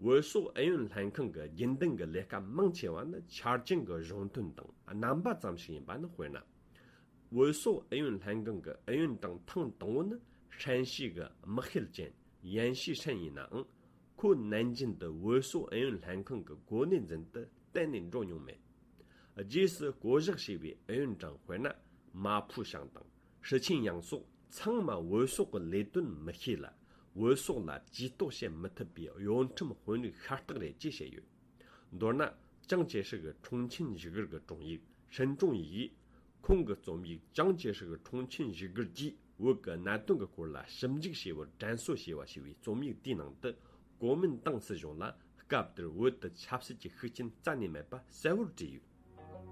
བོད་སོག་ཨུ་ཡོན་ལྷན་ཁང་གི་རྒྱུན་ལྡན་གྱི་ལས་ཀ་མང་ཆེ་བ་ནི་ཆ་རྐྱེན་གྱི་གཞུང་དོན་དང་རྣམ་པ་ཙམ་ཞིག་ཡིན་པ་ནི། དཔེར་ན། བོད་སོག་ཨུ་ཡོན་ལྷན་ཁང་གི་ཨུ་ཡོན་ཀྲང་ཐེངས་དང་པོ་ནི་ཧྲན་ཞི་གི་དམག་ཤེད་ཅན་ཡན་ཞི་ཧྲན་ཡིན་ནའང་། ཁོ་ནན་ཅིན་དུ་བོད་སོག་ཨུ་ཡོན་ལྷན་ཁང་གི་གོ་གནས་འཛིན་དུ་གཏན་ནས་འགྲོ་མྱོང་མེད། རྗེས་སུ་བསྐོ་གཞག་བྱས་པའི་ཨུ་ཡོན་ཀྲང་དཔེར་ན། མ་ཕུ་ཞང་དང་ཧྲི་ཆིན་ཡང་སོགས་ཚང་མ་བོད་སོག་གི་ལས་དོན་མི་ཤེས་ལ། བོད་སོག་ལ་ཇུས་གཏོགས་བྱེད་མི་ཐུབ་པའི་གཡོ་ཁྲམ་དཔོན་རིགས་ཤ་སྟག་རེད་ཅེས་བཤད་ཡོད། མདོར་ན། ཅང་ཅེ་ཧྲི་གི་ཁྲུང་ཆིན་བཞུགས་སྒར་གྱི་དྲུང་ཡིག་ཧྲིན་ཀྲུང་ཡིས། ཁོང་གི་རྩོམ་ཡིག་ཅང་ཅེ་ཧྲི་གི་ཁྲུང་ཆིན་བཞུགས་སྒར་གྱིས་བོད་ཀྱི་གནད་དོན་གྱི་སྐོར་ལ་ཞིབ་འཇུག་བྱས་པར་དྲན་གསོ་ཞེས་པ་ཞེས་པའི་རྩོམ་ཡིག་དེའི་ནང་དུ། གོ་མིན་ཏང་སྲིད་གཞུང་ལ་སྐབས་དེར་བོད་དུ་ཆབ་སྲིད་ཀྱི་ཤུགས་རྐྱེན་རྩ་ནས་མེད་པ་གསལ་བོར་བྲིས་ཡོད།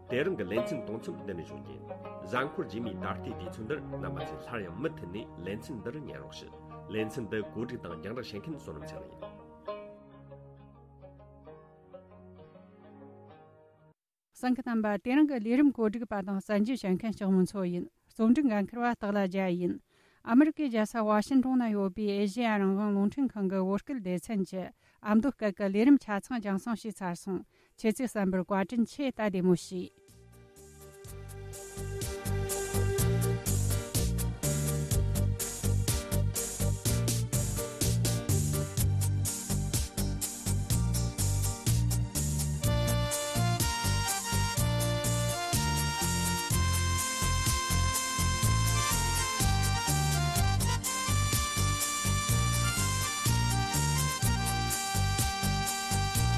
དེ་རིང་གི་ལེ་ཚན་གཏོང་མཚམས་འདི་ནས་འཇོག་རྒྱུ་ཡིན། གཟའ་འཁོར་རྗེས་མའི་ད་ལྟའི་དུས་ཚོད་འདིར་རྣམ་པ་ཚོས་སླར་ཡང་མུ་མཐུད་ནས་ལེ་ཚན་འདི་རུ་ཉན་རོགས་ཞུ། ལེ་ཚན་འདི་གོ་སྒྲིག་དང་རྒྱང་བསྒྲགས་བྱེད་མཁན་བསོད་ནམས་ཚེ་རིང་ཡིན། གསན་མཁན་རྣམ་པ། དེ་རིང་གི་ལས་རིམ་གོ་སྒྲིག་པ་དང་གསན་རྒྱུ་བྱེད་མཁན་ལྕགས་མོ་མཚོ་ཡིན། རྩོམ་སྒྲིག་འགན་འཁུར་བ་སྟག་ལྷ་རྒྱལ་ཡིན། ཨ་མི་རི་ཀའི་རྒྱལ་ས་ཝ་ཤིན་ཏོན་ན་ཡོད་པའི་ཨེ་ཤེ་ཡ་རང་དབང་རླུང་འཕྲིན་ཁང་གི་བོད་སྐད་སྡེ་ཚན་གྱི་ཨ་མདོ་སྐད་ཀྱི་ལས་རིམ་ཆ་ཚང་རྒྱང་སྲིང་ཞུས་ཚར་སོང་། ཁྱེད་ཚོས་གསན་པར་བཀའ་དྲིན་ཆེ། ད་བདེ་མོ་བྱོས།